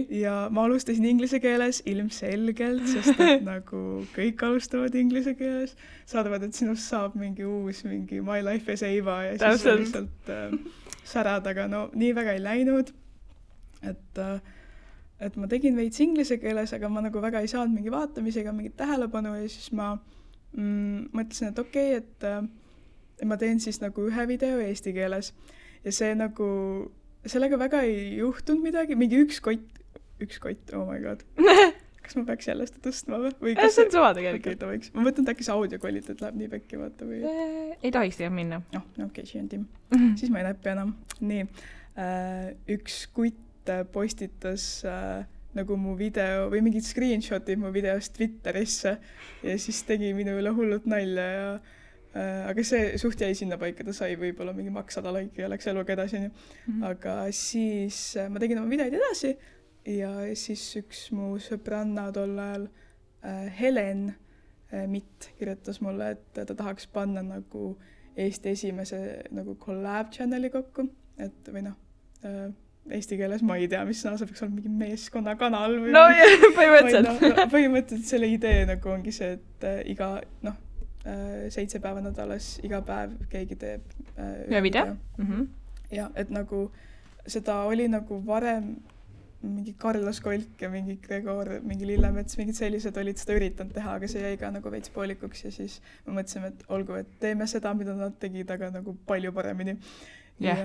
Ja ma alustasin inglise keeles ilmselgelt, sest et nagu kõik alustavad inglise keeles, saadavad, et sinust saab mingi uus, mingi My Life as Eva ja siis lihtsalt särad, aga no nii väga ei läinud, et ma tegin veits inglise keeles, aga ma nagu väga ei saanud mingi vaatamisega mingit tähelepanu ja siis ma mõtlesin, et okei, et ma teen siis nagu ühe video eesti keeles ja see nagu, sellega väga ei juhtunud midagi, mingi üks kott, oh my god. kas ma peaks jälle seda tõstma või see on suva tegelikult. Okay, ma mõtlen, et äkki see audio kvaliteet läheb nii pekki, vaata või... Ei tohiks teha minna. Okei, see on Tim. Siis ma ei näppi enam. Nii, üks kutt postitas nagu mu video või mingid screenshotid mu videost Twitterisse ja siis tegi minu üle hullult nalja ja aga see suht jäi sinna paika, ta sai võib-olla mingi maks 100 laiki ja läks eluga edasi. Aga siis ma tegin oma videoid edasi ja siis üks mu sõbranna tol ajal, Helen Mitt, kirjutas mulle, et ta tahaks panna nagu Eesti esimese nagu collab channeli kokku, et või eesti keeles ma ei tea, mis sõna, see peaks olla mingi meeskonnakanal või... No põhimõtteliselt. Põhimõtteliselt selle idee nagu ongi see, et iga, 7 päeva nädalas, iga päev keegi teeb ühe video. Ja, et nagu seda oli nagu varem mingi Carlos Kolk ja mingi Gregor, mingi Lillemets, mingid sellised olid seda üritanud teha, aga see jäi ka nagu veits poolikuks ja siis me mõtlesime, et olgu, et teeme seda, mida nad tegid, aga nagu palju paremini. Ja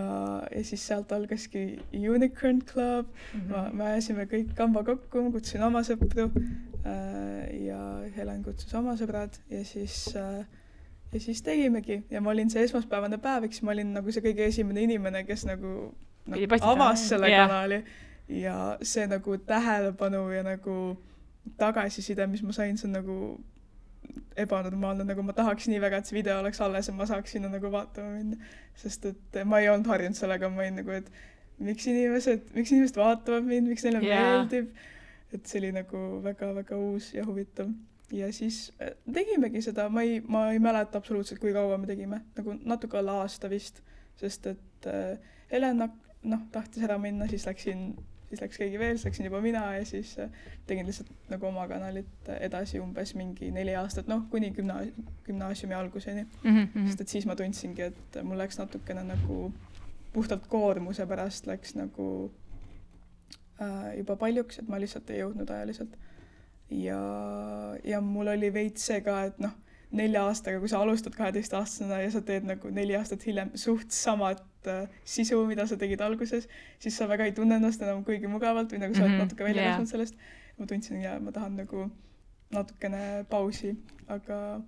siis sealt algaski Unicorn Club, me ajasime kõik kamba kokku, kutsusin oma sõpru ja Helen kutsus oma sõbrad ja siis tegimegi ja ma olin see esmaspäevane päev, eks ma olin nagu see kõige esimene inimene, kes nagu avas selle kanali ja see nagu tähelepanu ja nagu tagasiside, mis ma sain, see on nagu ebanormaalne, nagu ma tahaks nii väga, et see video oleks alles ja ma saaks sinna nagu vaatama minna, sest et ma ei olnud harjunud sellega, ma olin nagu, et miks inimesed vaatavad mind, miks neile meeldib, et see oli nagu väga-väga uus ja huvitav. Ja siis tegimegi seda, ma ei mäleta absoluutselt, kui kaua me tegime, nagu natuke alla aasta vist, sest et Helena tahtis ära minna, siis läks keegi veel, siis läksin juba mina ja siis tegin lihtsalt nagu oma kanalit edasi umbes mingi 4 aastat, kuni gümnaasiumi alguseni. Sest et siis ma tundsingi, et mul läks natukene nagu puhtalt koormuse pärast läks nagu juba paljuks, et ma lihtsalt ei jõudnud ajaliselt. Ja mul oli veits see ka, et 4 aastaga, kui sa alustad 12-aastasena ja sa teed nagu 4 aastat hiljem suht samad sisu, mida sa tegid alguses, siis sa väga ei tunne ennast enam kuigi mugavalt või nagu sa oled natuke välja kasvanud sellest. Ma tundsin, ja ma tahan nagu natukene pausi, aga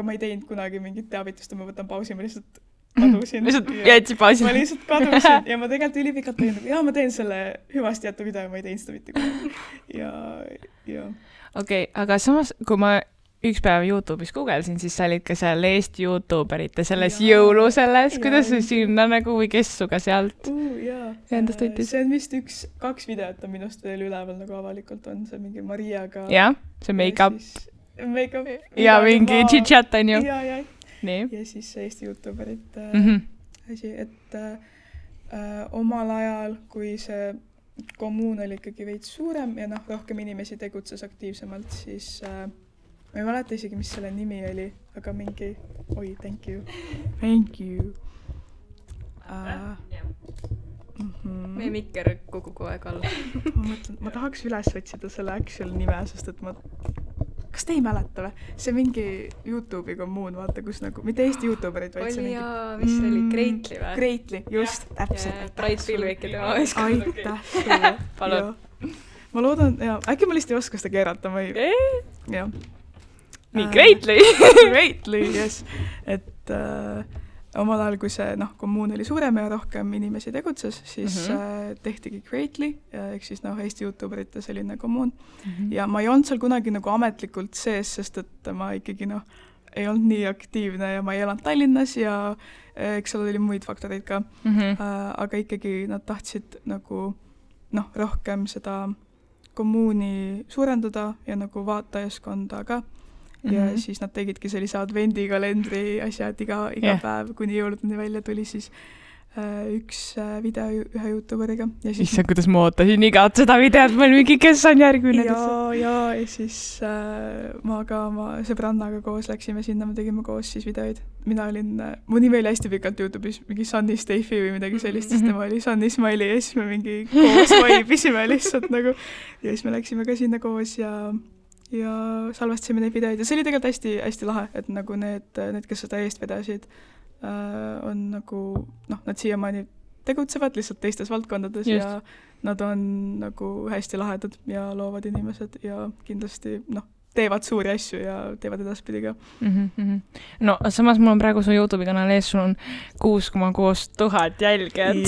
ma ei teinud kunagi mingit teavitust, ma võtan pausi, ma lihtsalt kadusin. Lihtsalt jätsid pausi. Ma lihtsalt kadusin ja ma tegelikult ülipikalt tegin, ma teen selle hüvasti jätu video ja ma ei teinud seda mitte kunagi. Okei, aga samas, kui ma üks päev YouTube'is googlesin, siis sa olid ka seal Eesti YouTuberite selles jõulu selles, kuidas see sinna nagu või kes suga sealt endast võttis? See on vist 2 videot on minust veel üleval nagu avalikult on, see mingi Mariaga. Jah, see make-up. Make-up. Ja mingi chit-chat on ju. Ja siis Eesti YouTuberite asi, et omal ajal, kui see kommuun oli ikkagi veits suurem ja rohkem inimesi tegutses aktiivsemalt, siis ma ei mäleta isegi, mis selle nimi oli, aga mingi... thank you. Thank you. Meie mikker kukub kogu aeg alla. ma tahaks üles otsida selle actual nime, sest et kas te ei mäleta või? See mingi YouTube'i kommuun, vaata, kus nagu... Mitte Eesti YouTuberid, vaid see mingi... mis see oli? Greatly või? Greatly, just. Täpselt. Bright Pilvik ja tema võisk. Aitäh sulle. Palun. Ma loodan... Äkki ma lihtsalt ei oska seda keerata, ma ei... Jah. Nii, Greatly. Greatly, yes. Et omal ajal, kui see kommuun oli suurem ja rohkem inimesi tegutses, siis tehtigi Greatly, ehk siis Eesti YouTuberite selline kommuun. Ja ma ei olnud seal kunagi nagu ametlikult sees, sest et ma ikkagi ei olnud nii aktiivne ja ma ei elanud Tallinnas ja eks seal oli muid faktoreid ka. Aga ikkagi nad tahtsid nagu rohkem seda kommuuni suurendada ja nagu vaatajaskonda ka. Ja siis nad tegidki sellise advendikalendri asjad iga päev, kuni jõuludeni välja tuli siis üks video ühe YouTuberiga. Issa, kuidas ma ootasin igat seda videot, ma olin mingi, kes on järgmine. Ja siis ma ka oma sõbrannaga koos läksime sinna, me tegime koos siis videoid. Mina olin, mu nimi oli hästi pikalt YouTube'is mingi Sunny Staffi või midagi sellist, sest tema oli Sunny Smiley ja siis me mingi koos vaibisime lihtsalt nagu. Ja siis me läksime ka sinna koos ja salvestasime neid videoid ja see oli tegelikult hästi lahe, et nagu need, kes seda eest vedasid, on nagu, nad siiamaani tegutsevad lihtsalt teistes valdkondades Just. ja nad on nagu hästi lahedad ja loovad inimesed ja kindlasti teevad suuri asju ja teevad edaspidi ka. No samas mul on praegu su YouTube'i kanal ees, sul on 6,6 tuhat jälgijat.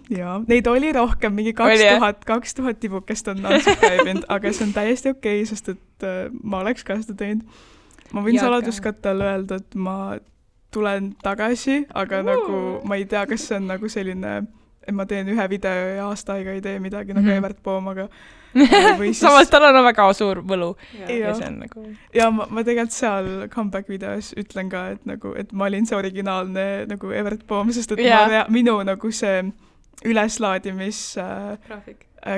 ja neid oli rohkem, mingi 2000 tibukest on unsubscribe'inud, aga see on täiesti okei, sest et ma oleks ka seda teinud. Ma võin saladuskattele öelda, et ma tulen tagasi, aga nagu ma ei tea, kas see on nagu selline, et ma teen ühe video ja aasta aega ei tee midagi nagu Evert Poom, aga siis... Samas tal on väga suur võlu. Ja see on nagu... Ja ma tegelikult seal comeback videos ütlen ka, et, nagu, et ma olin see originaalne nagu Evert Poom, sest et minu nagu see üleslaadimis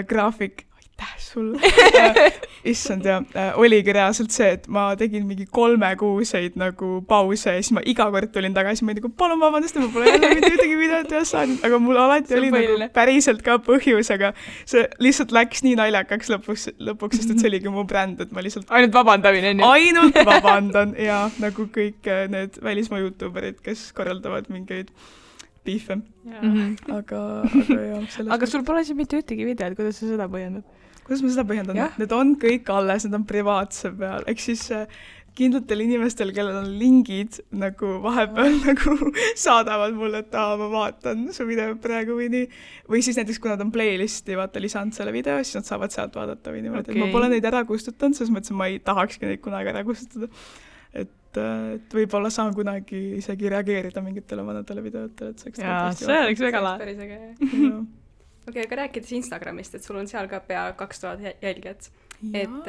graafik aitäh sulle issand ja oligi reaalselt see, et ma tegin mingi 3-kuuseid nagu pause ja siis ma iga kord tulin tagasi, ma nagu palun vabandust, ma pole jälle mitte ühtegi videot üles saanud, aga mul alati oli nagu päriselt ka põhjus, aga see lihtsalt läks nii naljakaks lõpuks, sest et see oligi mu bränd, et ma lihtsalt ainult vabandamine on ju? Ainult vabandan ja nagu kõik need välismaa YouTuberid, kes korraldavad mingeid piife. Aga jah. Aga sul pole siin mitte ühtegi videot, kuidas sa seda põhjendad? Kuidas ma seda põhjendan? Need on kõik alles, need on privaatse peal. Ehk siis kindlatel inimestel, kellel on lingid, nagu vahepeal nagu saadavad mulle, et ma vaatan su video praegu või nii. Või siis näiteks, kui nad on playlisti lisanud selle video, siis nad saavad sealt vaadata või niimoodi. Okay. Ma pole neid ära kustutanud, selles mõttes, ma ei tahakski neid kunagi ära kustutada. Et võib-olla saan kunagi isegi reageerida mingitele vanadele videotele. Jaa, see oleks väga päris äge. Okei, aga rääkides Instagramist, et sul on seal ka pea 2000 jälgijat. Et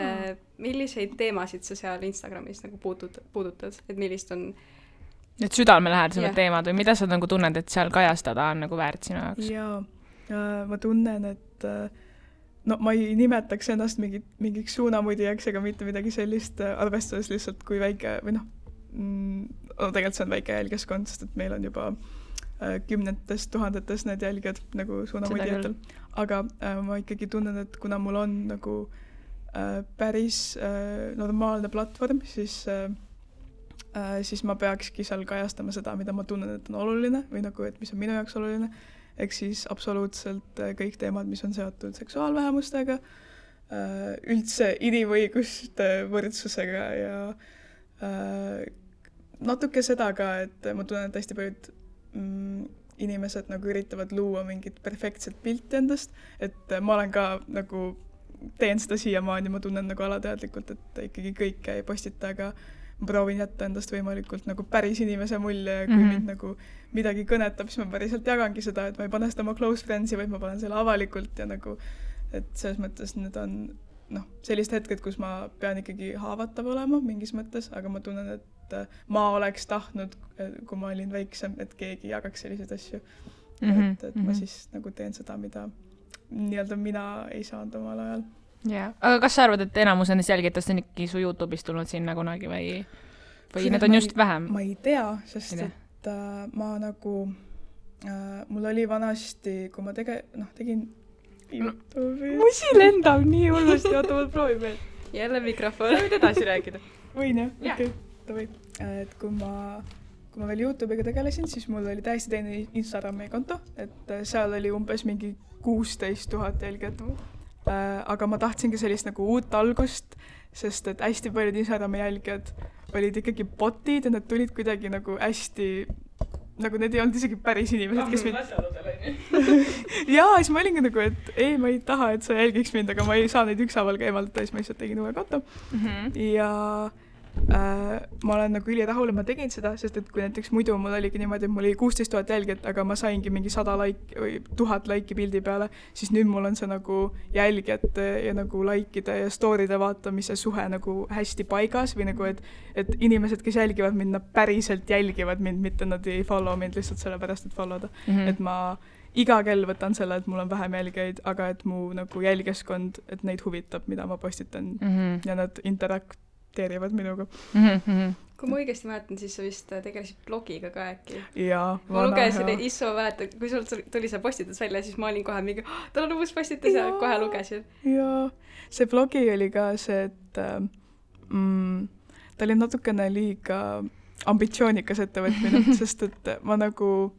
milliseid teemasid sa seal Instagramis nagu puudutad? Et millist on... Need südamelähedased teemad või mida sa nagu tunned, et seal kajastada on nagu väärt sinu jaoks? Jaa, ma tunnen, et ma ei nimetaks ennast mingiks suunamudijaks ega mitte midagi sellist, arvestades lihtsalt kui väike, või tegelikult see on väike jälgijaskond, sest et meil on juba 10 tuhandetes need jälgijad nagu suunamudijatel. Aga ma ikkagi tunnen, et kuna mul on nagu päris normaalne platvorm, siis ma peakski seal kajastama seda, mida ma tunnen, et on oluline või nagu, et mis on minu jaoks oluline. Ehk siis absoluutselt kõik teemad, mis on seotud seksuaalvähemustega, üldse inimõiguste võrdsusega ja natuke seda ka, et ma tunnen, et hästi paljud inimesed nagu üritavad luua mingit perfektset pilti endast, et ma olen ka nagu teen seda siiamaani, ma tunnen nagu alateadlikult, et ikkagi kõike ei postita, aga ma proovin jätta endast võimalikult nagu päris inimese mulje ja kui mind nagu midagi kõnetab, siis ma päriselt jagangi seda, et ma ei pane seda oma close friends'i, vaid ma panen selle avalikult ja nagu, et selles mõttes need on sellised hetked, kus ma pean ikkagi haavatav olema mingis mõttes, aga ma tunnen, et ma oleks tahtnud, kui ma olin väiksem, et keegi jagaks selliseid asju. Et ma siis nagu teen seda, mida nii-öelda mina ei saanud omal ajal. Yeah. Aga kas sa arvad, et enamus nendest jälgitest on ikkagi su YouTube'ist tulnud sinna kunagi või need on just vähem? Ma ei tea, sest et ma nagu, mul oli vanasti, kui ma tegin YouTube'i. Musi lendab nii hullusti, oota, ma proovin veel. Jälle mikrofon. Sa võid edasi rääkida. Võin jah? Okei, davai. Et kui ma veel YouTube'iga tegelesin, siis mul oli täiesti teine Instagrami konto, et seal oli umbes mingi 16 000 jälgijat. Aga ma tahtsingi sellist nagu uut algust, sest et hästi paljud Instagrami jälgijad olid ikkagi botid ja nad tulid kuidagi nagu hästi, nagu need ei olnud isegi päris inimesed, kes mind... Jaa, siis ma olingi nagu, et ei, ma ei taha, et sa jälgiks mind, aga ma ei saa neid ükshaaval ka eemaldada, siis ma lihtsalt tegin uue konto. Ja ma olen nagu ülirahul, et ma tegin seda, sest et kui näiteks muidu mul oligi niimoodi, et mul oli 16 000 jälgijat, aga ma saingi mingi 100 laiki või 1000 laiki pildi peale, siis nüüd mul on see nagu jälgijate ja nagu laikide ja story'de vaatamise suhe nagu hästi paigas või nagu, et inimesed, kes jälgivad mind, nad päriselt jälgivad mind, mitte nad ei follow mind lihtsalt sellepärast, et followda. Et ma iga kell võtan selle, et mul on vähem jälgijaid, aga et mu nagu jälgijaskond, et neid huvitab, mida ma postitan ja nad teerivad minuga. Kui ma õigesti mäletan, siis sa vist tegelesid blogiga ka äkki. Jaa, ma lugesin, Isso mäletan, kui sul tuli see postitus välja, siis ma olin kohe mingi, tal on uus postitus ja kohe lugesin. Jaa, see blogi oli ka see, et ta oli natukene liiga ambitsioonikas ettevõtmine, sest et ma nagu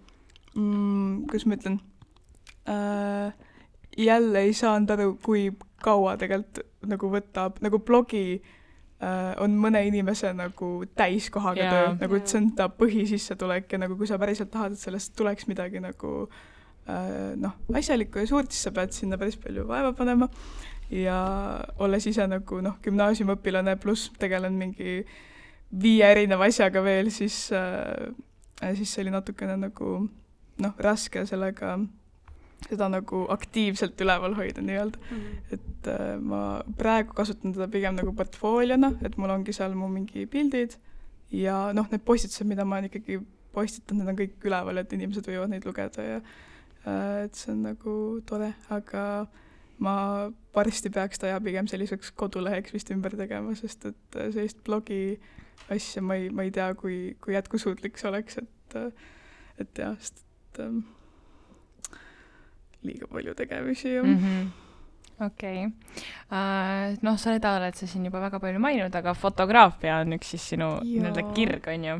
kuidas ma ütlen, jälle ei saanud aru, kui kaua tegelikult nagu võtab, nagu blogi on mõne inimese nagu täiskohaga töö, nagu et see on ta põhisissetulek ja nagu kui sa päriselt tahad, et sellest tuleks midagi nagu asjalikku ja suurt, siis sa pead sinna päris palju vaeva panema ja olles ise nagu gümnaasiumiõpilane pluss tegelen mingi 5 erineva asjaga veel, siis see oli natukene nagu raske sellega seda nagu aktiivselt üleval hoida nii-öelda. Et ma praegu kasutan teda pigem nagu portfooliona, et mul ongi seal mu mingi pildid ja need postitused, mida ma ikkagi postitan, need on kõik üleval, et inimesed võivad neid lugeda ja et see on nagu tore, aga ma varsti peaks ta pigem selliseks koduleheks vist ümber tegema, sest et sellist blogi asja ma ei tea, kui jätkusuutlik see oleks, et jah, sest liiga palju tegemisi. Okei. Sa oled sa siin juba väga palju maininud, aga fotograafia on üks siis sinu kirg, on ju.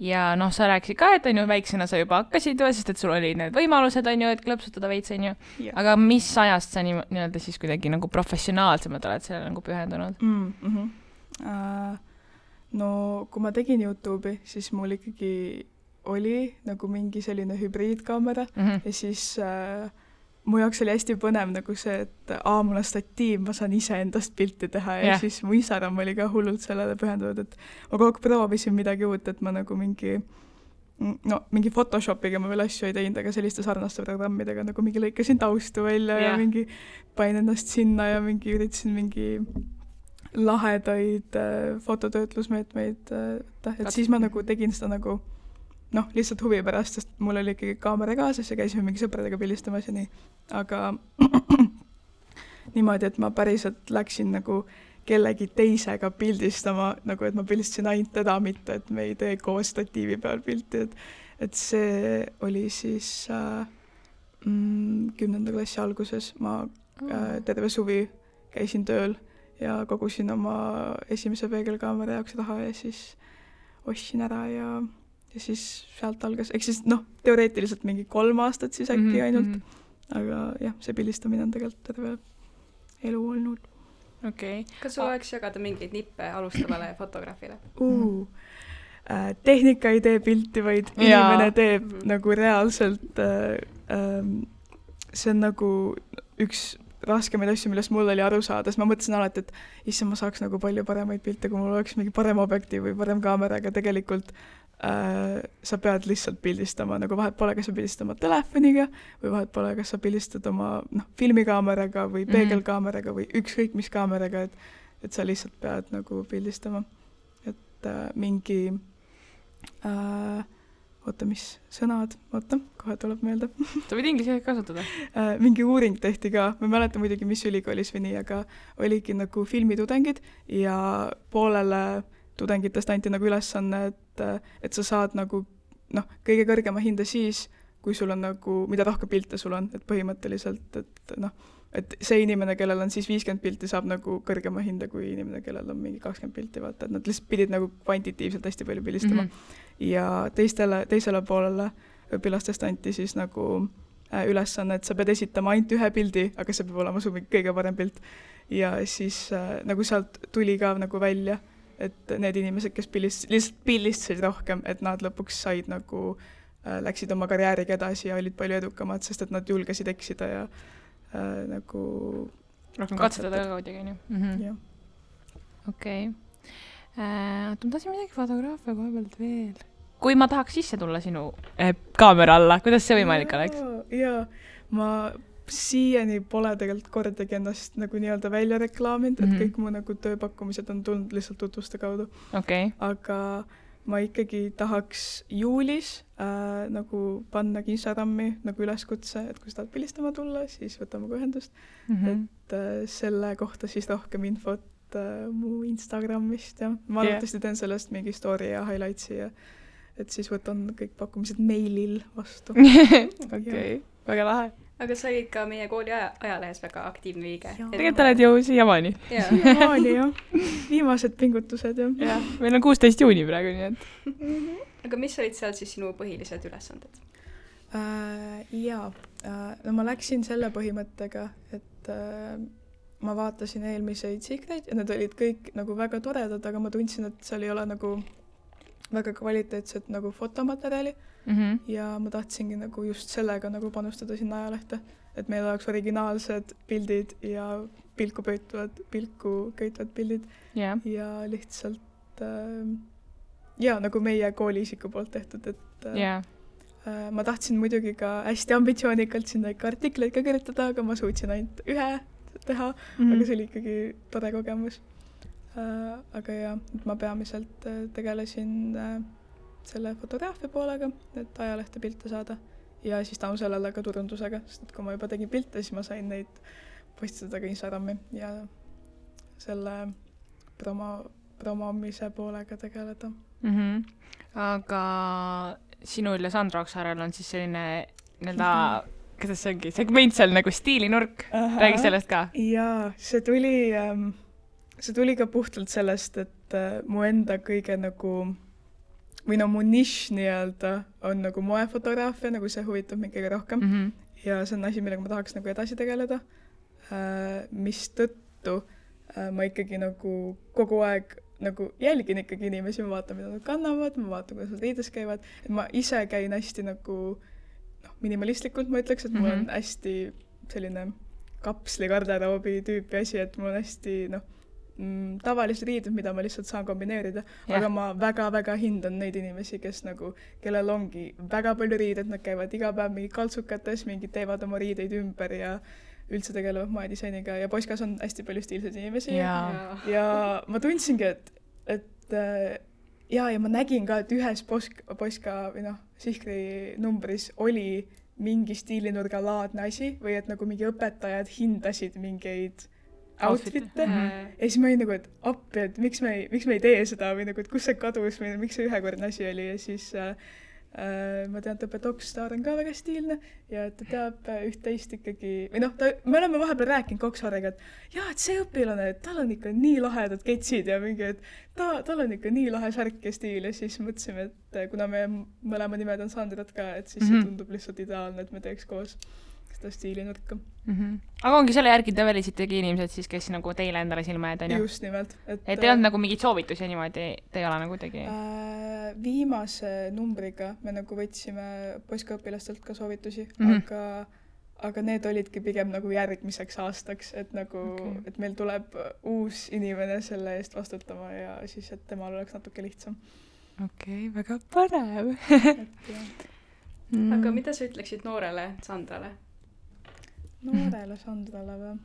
Ja sa rääkisid ka, et väiksena sa juba hakkasid, sest et sul oli need võimalused, on ju, et klõpsutada veits, on ju. Aga mis ajast sa nii-öelda siis kuidagi nagu professionaalsemalt oled sellele nagu pühendunud? No kui ma tegin YouTube'i, siis mul ikkagi oli nagu mingi selline hübriidkaamera ja siis mu jaoks oli hästi põnev nagu see, et mul on statiiv, ma saan ise endast pilti teha ja siis mu Instagram oli ka hullult sellele pühendunud, et ma kogu aeg proovisin midagi uut, et ma nagu mingi Photoshopiga ma veel asju ei teinud, aga selliste sarnaste programmidega nagu mingi lõikasin taustu välja ja mingi pain ennast sinna ja mingi üritasin mingi lahedaid fototöötlusmeetmeid, et siis ma nagu tegin seda nagu lihtsalt huvi pärast, sest mul oli ikkagi kaamera kaasas ja käisime mingi sõpradega pildistamas ja nii. Aga niimoodi, et ma päriselt läksin nagu kellegi teisega pildistama, nagu et ma pildistasin ainult teda, mitte et me ei tee koos statiivi peal pilti. Et see oli siis 10. klassi alguses. Ma terve suvi käisin tööl ja kogusin oma esimese peegelkaamera jaoks raha ja siis ostsin ära ja siis sealt algas, ehk siis teoreetiliselt mingi 3 aastat siis äkki ainult, aga jah, see pildistamine on tegelikult terve elu olnud. Okay. Kas sul oleks jagada mingeid nippe alustavale fotograafile? Tehnika ei tee pilti, vaid inimene teeb nagu reaalselt, see on nagu üks raskemaid asju, millest mul oli aru saada, sest ma mõtlesin alati, et issand, ma saaks nagu palju paremaid pilte, kui mul oleks mingi parem objektiiv või parem kaamera, aga tegelikult sa pead lihtsalt pildistama, nagu vahet pole, kas sa pildistama telefoniga või vahet pole, kas sa pildistad oma filmikaameraga või peegelkaameraga või ükskõik mis kaameraga, et sa lihtsalt pead nagu pildistama. Et mingi mis sõnad, kohe tuleb meelde. Sa võid inglise kasutada. Mingi uuring tehti ka, ma ei mäleta muidugi, mis ülikoolis või nii, aga oligi nagu filmitudengid ja poolele tudengitest anti nagu ülesanne, et sa saad nagu kõige kõrgema hinde siis, kui sul on nagu, mida rohkem pilte sul on, et põhimõtteliselt, et see inimene, kellel on siis 50 pilti, saab nagu kõrgema hinde kui inimene, kellel on mingi 20 pilti, vaata, et nad lihtsalt pidid nagu kvantitiivselt hästi palju pildistama. Ja teisele poolele õpilastest anti siis nagu ülesanne, et sa pead esitama ainult ühe pildi, aga see peab olema su kõige parem pilt. Ja siis nagu sealt tuli ka nagu välja, et need inimesed, kes lihtsalt pildistasid rohkem, et nad lõpuks said nagu, läksid oma karjääriga edasi ja olid palju edukamad, sest et nad julgesid eksida ja nagu rohkem katsetada ka kuidagi, nii. Okei. Ma tahtsin midagi fotograafia koha pealt veel. Kui ma tahaks sisse tulla sinu kaamera alla, kuidas see võimalik oleks? Jaa, ma siiani pole tegelikult kordagi ennast nagu nii-öelda välja reklaaminud, et kõik mu nagu tööpakkumised on tulnud lihtsalt tutvuste kaudu. Okay. Aga ma ikkagi tahaks juulis nagu panna Instagrami nagu üleskutse, et kui sa tahad pildistama tulla, siis võtame ühendust. Et selle kohta siis rohkem infot mu Instagramist ja ma arvatavasti teen sellest mingi story ja highlightsi ja et siis võtan kõik pakkumised meilil vastu. Okei, väga lahe. Aga sa olid ka meie kooli ajalehes väga aktiivne liige. Tegelikult oled ju siiamaani. Siiamaani, jah. Viimased pingutused, jah. Meil on 16 juuni praegu, nii et. Aga mis olid seal siis sinu põhilised ülesanded? Jaa, no ma läksin selle põhimõttega, et ma vaatasin eelmiseid sikreid ja need olid kõik nagu väga toredad, aga ma tundsin, et seal ei ole nagu väga kvaliteetset nagu fotomaterjali ja ma tahtsingi nagu just sellega nagu panustada sinna ajalehte, et meil oleks originaalsed pildid ja pilku köitvad pildid ja lihtsalt ja nagu meie kooliisiku poolt tehtud, et ma tahtsin muidugi ka hästi ambitsioonikalt sinna ikka artikleid ka kirjutada, aga ma suutsin ainult ühe teha, aga see oli ikkagi tore kogemus. Aga jah, ma peamiselt tegelesin selle fotograafia poolega, et ajalehte pilte saada ja siis tänu sellele ka turundusega, sest et kui ma juba tegin pilte, siis ma sain neid postitada ka Instagrami ja selle promomise poolega tegeleda. Aga sinul ja Sandra Oksaarel on siis selline nii-öelda, kuidas see ongi, segment seal nagu stiilinurk, räägi sellest ka. Jaa, see tuli ka puhtalt sellest, et mu enda kõige nagu, või no mu nišš nii-öelda on nagu moefotograafia, nagu see huvitab mind kõige rohkem ja see on asi, millega ma tahaks nagu edasi tegeleda, mis tõttu ma ikkagi nagu kogu aeg nagu jälgin ikkagi inimesi, ma vaatan, mida nad kannavad, ma vaatan, kuidas nad riides käivad, et ma ise käin hästi nagu minimalistlikult, ma ütleks, et mul on hästi selline kapsli garderoobi tüüpi asi, et mul on hästi tavalised riided, mida ma lihtsalt saan kombineerida, aga ma väga-väga hindan neid inimesi, kes nagu, kellel ongi väga palju riided, nad käivad iga päev mingi kaltsukates, mingid teevad oma riideid ümber ja üldse tegelevad moedisainiga ja Poiskas on hästi palju stiilseid inimesi ja ma tundsingi, et ja ma nägin ka, et ühes Poiska või Sihkri numbris oli mingi stiilinurga laadne asi või et nagu mingi õpetajad hindasid mingeid outfit'e ja siis ma olin nagu, et appi, et miks me ei tee seda või nagu, et kus see kadus või miks see ühekordne asi oli ja siis ma tean, et õpetaja Oksaar on ka väga stiilne ja ta teab üht-teist ikkagi, või me oleme vahepeal rääkinud Oksaariga, et jaa, et see õpilane, et tal on ikka nii lahedad ketsid ja mingi, et tal on ikka nii lahe särk ja stiil ja siis mõtlesime, et kuna me mõlema nimed on Sandrat ka, et siis see tundub lihtsalt ideaalne, et me teeks koos seda stiilinurka. Aga ongi selle järgi te välisitegi inimesed siis, kes nagu teile endale silma jääd, on ju? Just nimelt. Et te ei olnud nagu mingid soovitusi niimoodi, te ei ole nagu tegi? Viimase numbriga me nagu võtsime Poiska õpilastelt ka soovitusi, aga need olidki pigem nagu järgmiseks aastaks, et nagu, et meil tuleb uus inimene selle eest vastutama ja siis, et temal oleks natuke lihtsam. Okei, väga põnev. Aga mida sa ütleksid noorele Sandrale? Noorele Sandrale või?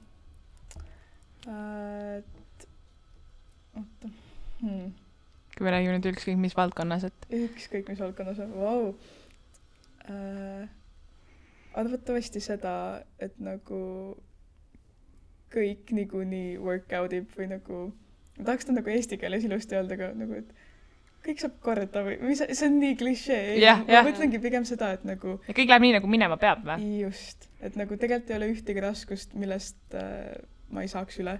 Oota. Kui me räägime nüüd ükskõik mis valdkonnas, et... Ükskõik mis valdkonnas, vau. Arvatavasti seda, et nagu kõik niikuinii workoutib või nagu... Ma tahaks ta nagu eesti keeles ilusti öelda, aga nagu, et kõik saab korda või see on nii klišee. Ma mõtlengi pigem seda, et nagu... Ja kõik läheb nii, nagu minema peab või? Just. Et nagu tegelikult ei ole ühtegi raskust, millest ma ei saaks üle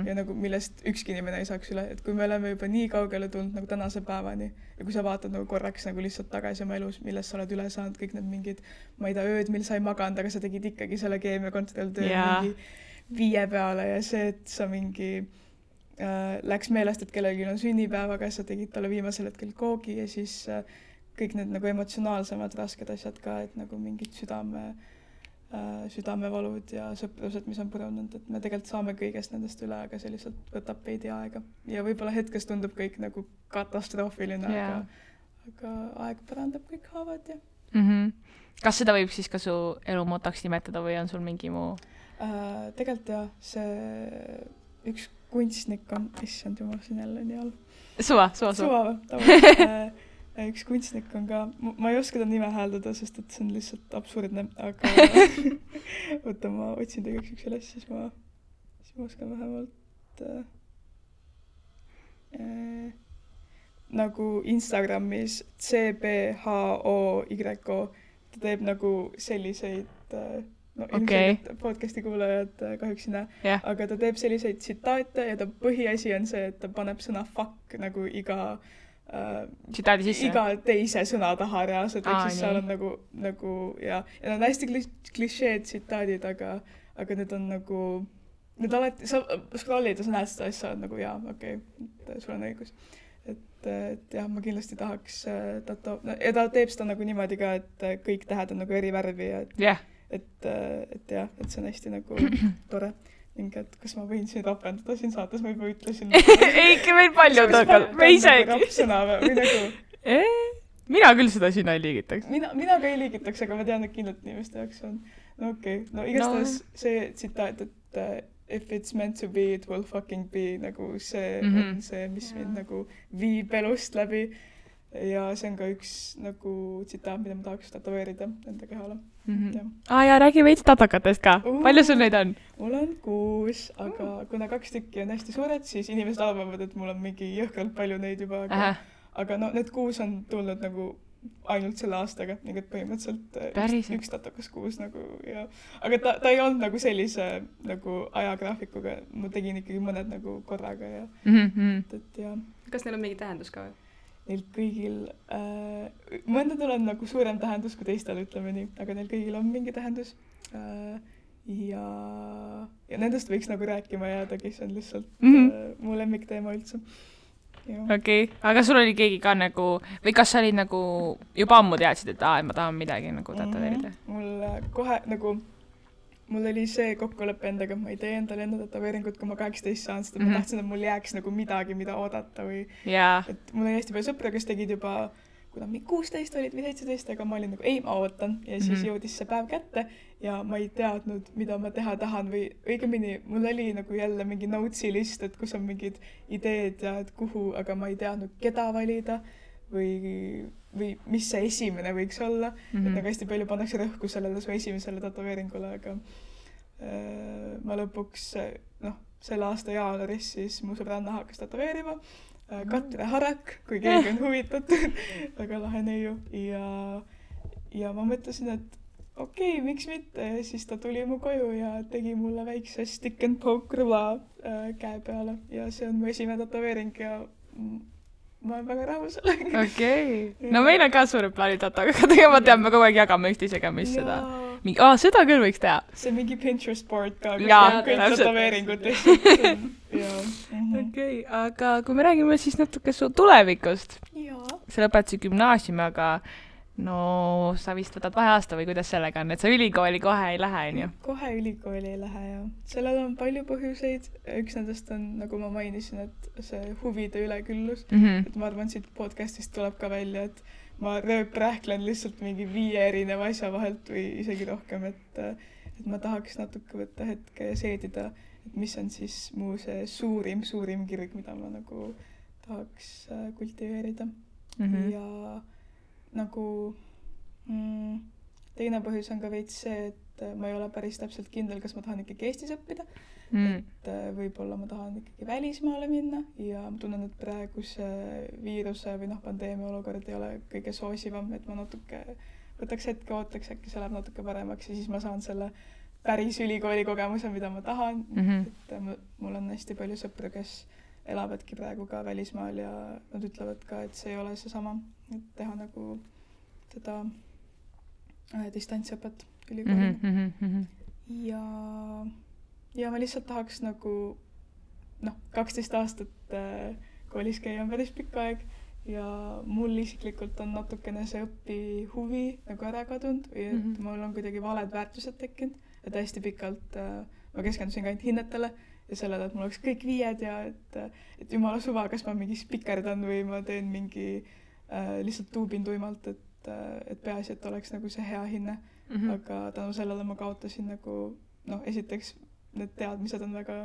ja nagu millest ükski inimene ei saaks üle. Et kui me oleme juba nii kaugele tulnud nagu tänase päevani ja kui sa vaatad nagu korraks nagu lihtsalt tagasi oma elus, millest sa oled üle saanud, kõik need mingid, ma ei tea, ööd, mil sa ei maganud, aga sa tegid ikkagi selle keemiakontrolltöö mingi 5 peale ja see, et sa mingi... läks meelest, et kellelgi on sünnipäevaga, sa tegid talle viimasel hetkel koogi ja siis kõik need nagu emotsionaalsemad rasked asjad ka, et nagu mingid südamevalud ja sõprused, mis on purunud, et me tegelikult saame kõigest nendest üle, aga see lihtsalt võtab veidi aega. Ja võib-olla hetkes tundub kõik nagu katastroofiline, aga aeg parandab kõik haavad ja... Kas seda võib siis ka su elumotaks nimetada või on sul mingi muu? Tegelikult jah, see üks kunstnik on, issand jumal, siin jälle nii all. Suva. Üks kunstnik on ka, ma ei oska ta nime hääldada, sest et see on lihtsalt absurdne, aga võtta, ma otsin tegeks üks üles, siis ma oskan vähemalt nagu Instagramis CBHOYO, ta teeb nagu selliseid ilmselt podcasti kuulajad kahjuks ei näe, aga ta teeb selliseid tsitaate ja ta põhiasi on see, et ta paneb sõna fuck nagu iga tsitaadi sisse? iga teise sõna taha reaalselt, ehk siis seal on nagu ja need on hästi klišeed tsitaadid, aga need on nagu, need alati, sa scrollid ja sa näed seda asja, nagu jaa, okei, sul on õigus. Et jah, ma kindlasti tahaks ja ta teeb seda nagu niimoodi ka, et kõik tähed on nagu eri värvi ja et see on hästi nagu tore. Ning et kas ma võin siin rapendada siin saates, ma juba ütlesin. Eiki, meil palju tõkal, me isegi. Rapsõna või nagu... Mina küll seda sina ei liigitaks. Mina ka ei liigitaks, aga ma tean, et kindlalt inimeste jaoks on. No okei. No igastahes see tsitaat, et if it's meant to be, it will fucking be, nagu see on see, mis mind nagu viib elust läbi. Ja see on ka üks nagu tsitaat, mida ma tahaks tatoveerida enda kehale. Ja räägi veits tatakatest ka. Palju sul neid on? Mul on 6, aga kuna 2 tükki on hästi suured, siis inimesed arvavad, et mul on mingi jõhkralt palju neid juba. Aga no need 6 on tulnud nagu ainult selle aastaga, nii et põhimõtteliselt üks tatakas 6 nagu ja... Aga ta ei olnud nagu sellise nagu ajagraafikuga, ma tegin ikkagi mõned nagu korraga ja... Et ja... Kas neil on mingi tähendus ka? Neil kõigil, mõndadel on nagu suurem tähendus kui teistel, ütleme nii, aga neil kõigil on mingi tähendus. Ja nendest võiks nagu rääkima jäädagi, see on lihtsalt mu lemmikteema üldse. Okei, aga sul oli keegi ka nagu, või kas sa olid nagu juba ammu teadsid, et ma tahan midagi nagu tatoveerida? Mul kohe nagu, mul oli see kokkuleppe endaga, ma ei tee endale enda tatoveeringut, kui ma 18 saan, sest ma tahtsin, et mul jääks nagu midagi, mida oodata või et mul oli hästi palju sõpra, kes tegid juba, kuna 16 olid või 17, aga ma olin nagu, ei, ma ootan ja siis jõudis see päev kätte ja ma ei teadnud, mida ma teha tahan või õigemini, mul oli nagu jälle mingi notesi list, et kus on mingid ideed ja et kuhu, aga ma ei teadnud, keda valida või mis see esimene võiks olla. Et nagu hästi palju pannakse rõhku sellele su esimesele tatoveeringule, aga ma lõpuks, selle aasta jaanuaris siis mu sõbranna hakkas tatoveerima. Katre Harak, kui keegi on huvitatud, väga lahe neiu. Ja ma mõtlesin, et okei, miks mitte. Ja siis ta tuli mu koju ja tegi mulle väikse stick and poke rõva käe peale. Ja see on mu esimene tatoveering ja ma olen väga rahul sellega. Okei. No meil on ka suured plaanid tatoga, ma tean, me kogu aeg jagame üksteisega, mis seda. Seda küll võiks teha. See on mingi Pinterest board ka, kõik tatoveeringud lihtsalt. Okei, aga kui me räägime siis natuke su tulevikust. Sa lõpetasid gümnaasiumi, aga sa vist võtad vaheaasta või kuidas sellega on, et sa ülikooli kohe ei lähe, on ju? Kohe ülikooli ei lähe, jah. Sellel on palju põhjuseid. Üks nendest on, nagu ma mainisin, et see huvide üleküllus. Et ma arvan, siit podcastist tuleb ka välja, et ma rööprähklen lihtsalt mingi 5 erineva asja vahelt või isegi rohkem, et ma tahaks natuke võtta hetke ja seedida, et mis on siis mu see suurim kirg, mida ma nagu tahaks kultiveerida. Ja nagu teine põhjus on ka veits see, et ma ei ole päris täpselt kindel, kas ma tahan ikkagi Eestis õppida. Et võib-olla ma tahan ikkagi välismaale minna ja ma tunnen, et praeguse viiruse või pandeemia olukord ei ole kõige soosivam, et ma natuke võtaks hetke, ootaks, äkki see läheb natuke paremaks ja siis ma saan selle päris ülikooli kogemuse, mida ma tahan. Et mul on hästi palju sõpru, kes elavadki praegu ka välismaal ja nad ütlevad ka, et see ei ole seesama, et teha nagu seda distantsõpet ülikoolina. Ja ma lihtsalt tahaks nagu 12 aastat koolis käia on päris pikk aeg ja mul isiklikult on natukene see õpihuvi nagu ära kadunud või et mul on kuidagi valed väärtused tekkinud, et hästi pikalt ma keskendusin ka ainult hinnetele ja sellele, et mul oleks kõik 5 ja et jumala suva, kas ma mingi spikerdan või ma teen mingi lihtsalt tuubin tuimalt, et peaasi, et oleks nagu see hea hinne. Aga tänu sellele ma kaotasin nagu, esiteks need teadmised on väga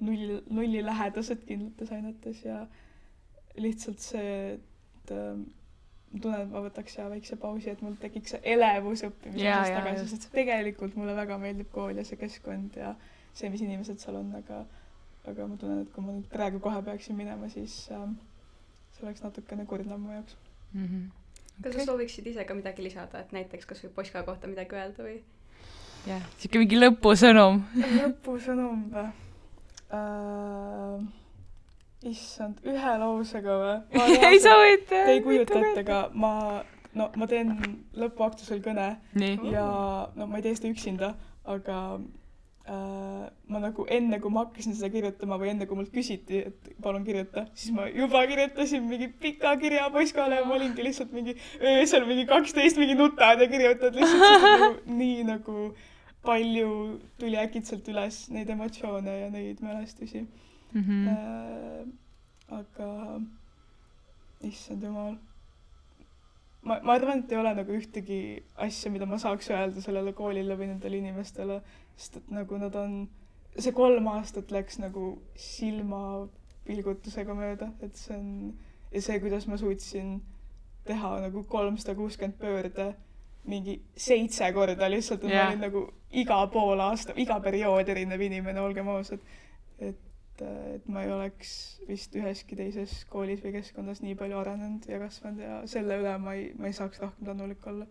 nulli lähedased kindlates ainetes ja lihtsalt see, et ma tunnen, et ma võtaks väikse pausi, et mul tekiks see elevus õppimisest tagasi, sest tegelikult mulle väga meeldib kool ja see keskkond ja see, mis inimesed seal on, aga ma tunnen, et kui ma nüüd praegu kohe peaksin minema, siis see oleks natukene kurnam mu jaoks. Kas sa sooviksid ise ka midagi lisada, et näiteks kas või Poska kohta midagi öelda või? Jah, siuke mingi lõpusõnum. Lõpusõnum või? issand, ühe lausega või? Ei sa võid. Te ei kujuta ette, aga ma teen lõpuaktusel kõne. Ja ma ei tee seda üksinda, aga ma nagu enne, kui ma hakkasin seda kirjutama või enne, kui mult küsiti, et palun kirjuta, siis ma juba kirjutasin mingi pika kirja poiskale ja ma olingi lihtsalt mingi öösel mingi 12 mingi nutad ja kirjutad lihtsalt nagu, nii nagu palju tuli äkitselt üles neid emotsioone ja neid mälestusi. Aga issand jumal. Ma arvan, et ei ole nagu ühtegi asja, mida ma saaks öelda sellele koolile või nendele inimestele, sest et nagu nad on, see 3 aastat läks nagu silmapilgutusega mööda, et see on, ja see, kuidas ma suutsin teha nagu 360 pöörde mingi 7 korda lihtsalt, et ma olin nagu iga pool aasta, iga periood erinev inimene, olgem ausad, et ma ei oleks vist üheski teises koolis või keskkondas nii palju arenenud ja kasvanud ja selle üle ma ei saaks rohkem tänulik olla.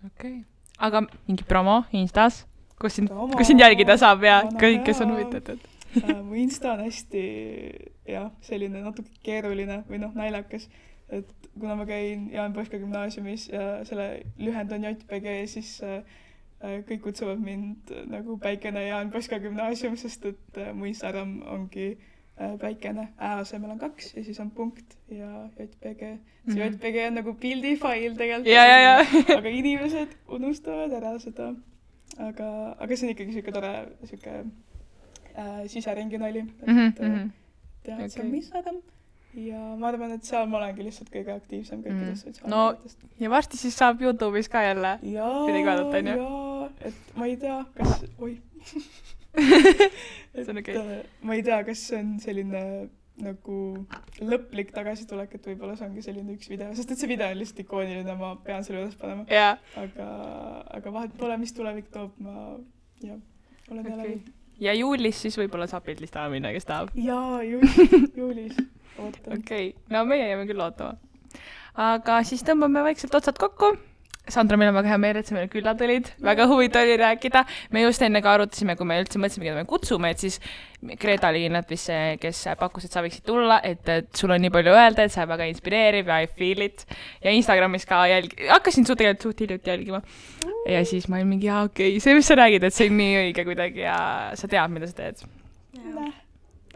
Okei. Aga mingi promo Instas, kus sind jälgida saab ja kõik, kes on huvitatud? Mu Insta on hästi selline natuke keeruline või naljakas, et kuna ma käin Jaan Poska gümnaasiumis ja selle lühend on JPG, siis kõik kutsuvad mind nagu Päikene Jaan Poska gümnaasium, sest et mu Instagram ongi Päikene, asemel on 2 ja siis on punkt ja JPG. See JPG on nagu pildifail tegelikult, aga inimesed unustavad ära seda. Aga see on ikkagi siuke tore siseringi nali. Et see on Instagram. Ja ma arvan, et seal ma olengi lihtsalt kõige aktiivsem kõikidest sotsiaalmeediatest. Ja varsti siis saab YouTube'is ka jälle midagi vaadata, on ju? Jaa, et ma ei tea, kas... ma ei tea, kas see on selline nagu lõplik tagasitulek, et võib-olla see ongi selline üks video, sest et see video on lihtsalt ikooniline, ma pean selle üles panema. Aga vahet pole, mis tulevik toob, ma olen jälle. Ja juulis siis võib-olla saab pildlistama minna, kes tahab? Jaa, juulis. Okei, no meie jääme küll ootama. Aga siis tõmbame vaikselt otsad kokku. Sandra, meil on väga hea meel, et sa meile külla tulid. Väga huvitav oli rääkida. Me just enne ka arutasime, kui me üldse mõtlesime, keda me kutsume, et siis Greta oli kindlalt vist see, kes pakkus, et sa võiksid tulla, et sul on nii palju öelda, et sa väga inspireerib ja I feel it. Ja Instagramis ka hakkasin tegelikult suht hiljuti jälgima. Ja siis ma olin mingi, okei, see, mis sa räägid, et see on nii õige kuidagi ja sa tead, mida sa teed.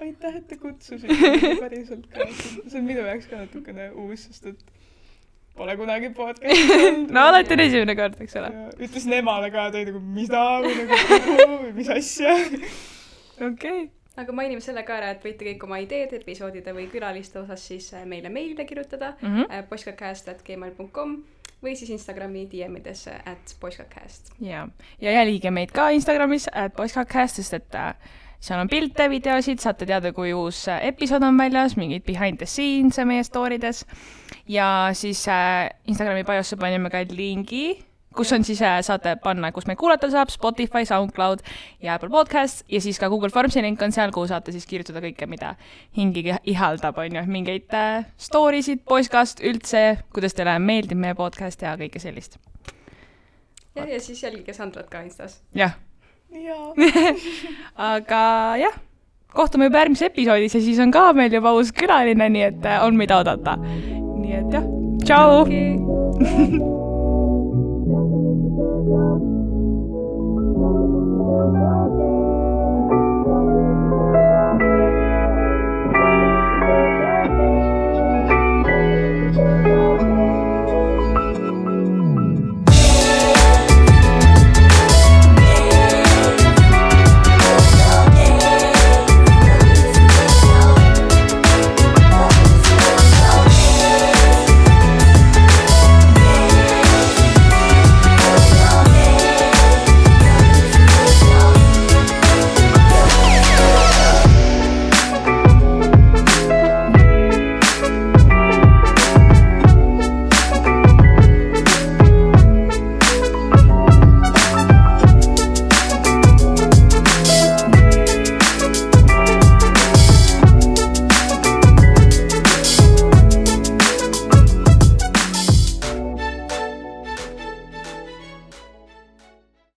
Aitäh, et te kutsusite päriselt ka. See on minu jaoks ka natukene uus, sest et pole kunagi podcast. No alati on esimene kord, eks ole. Ütlesin emale ka, tõi nagu mida või mis asja. Okei. Aga mainime selle ka ära, et võite kõik oma ideed, episoodide või külaliste osas siis meile meilile kirjutada poiskacast@gmail.com või siis Instagrami DM-idesse @poiskacast. Ja jälgige meid ka Instagramis @poiskacast, sest et seal on pilte, videosid, saate teada, kui uus episood on väljas, mingid behind the scenes meie storydes. Ja siis Instagrami biosse panime ka lingi, kus on siis saate panna, kus meid kuulata saab, Spotify, SoundCloud ja Apple Podcast ja siis ka Google Formsi link on seal, kuhu saate siis kirjutada kõike, mida hingi ihaldab, on ju, mingeid storysid, poiskast üldse, kuidas teile meeldib meie podcast ja kõike sellist. Ja siis jälgige Sandrat ka Instas. Jah. Aga jah, kohtume juba järgmises episoodis ja siis on ka meil juba uus külaline, nii et on mida oodata. Nii et jah, tšau! Okay.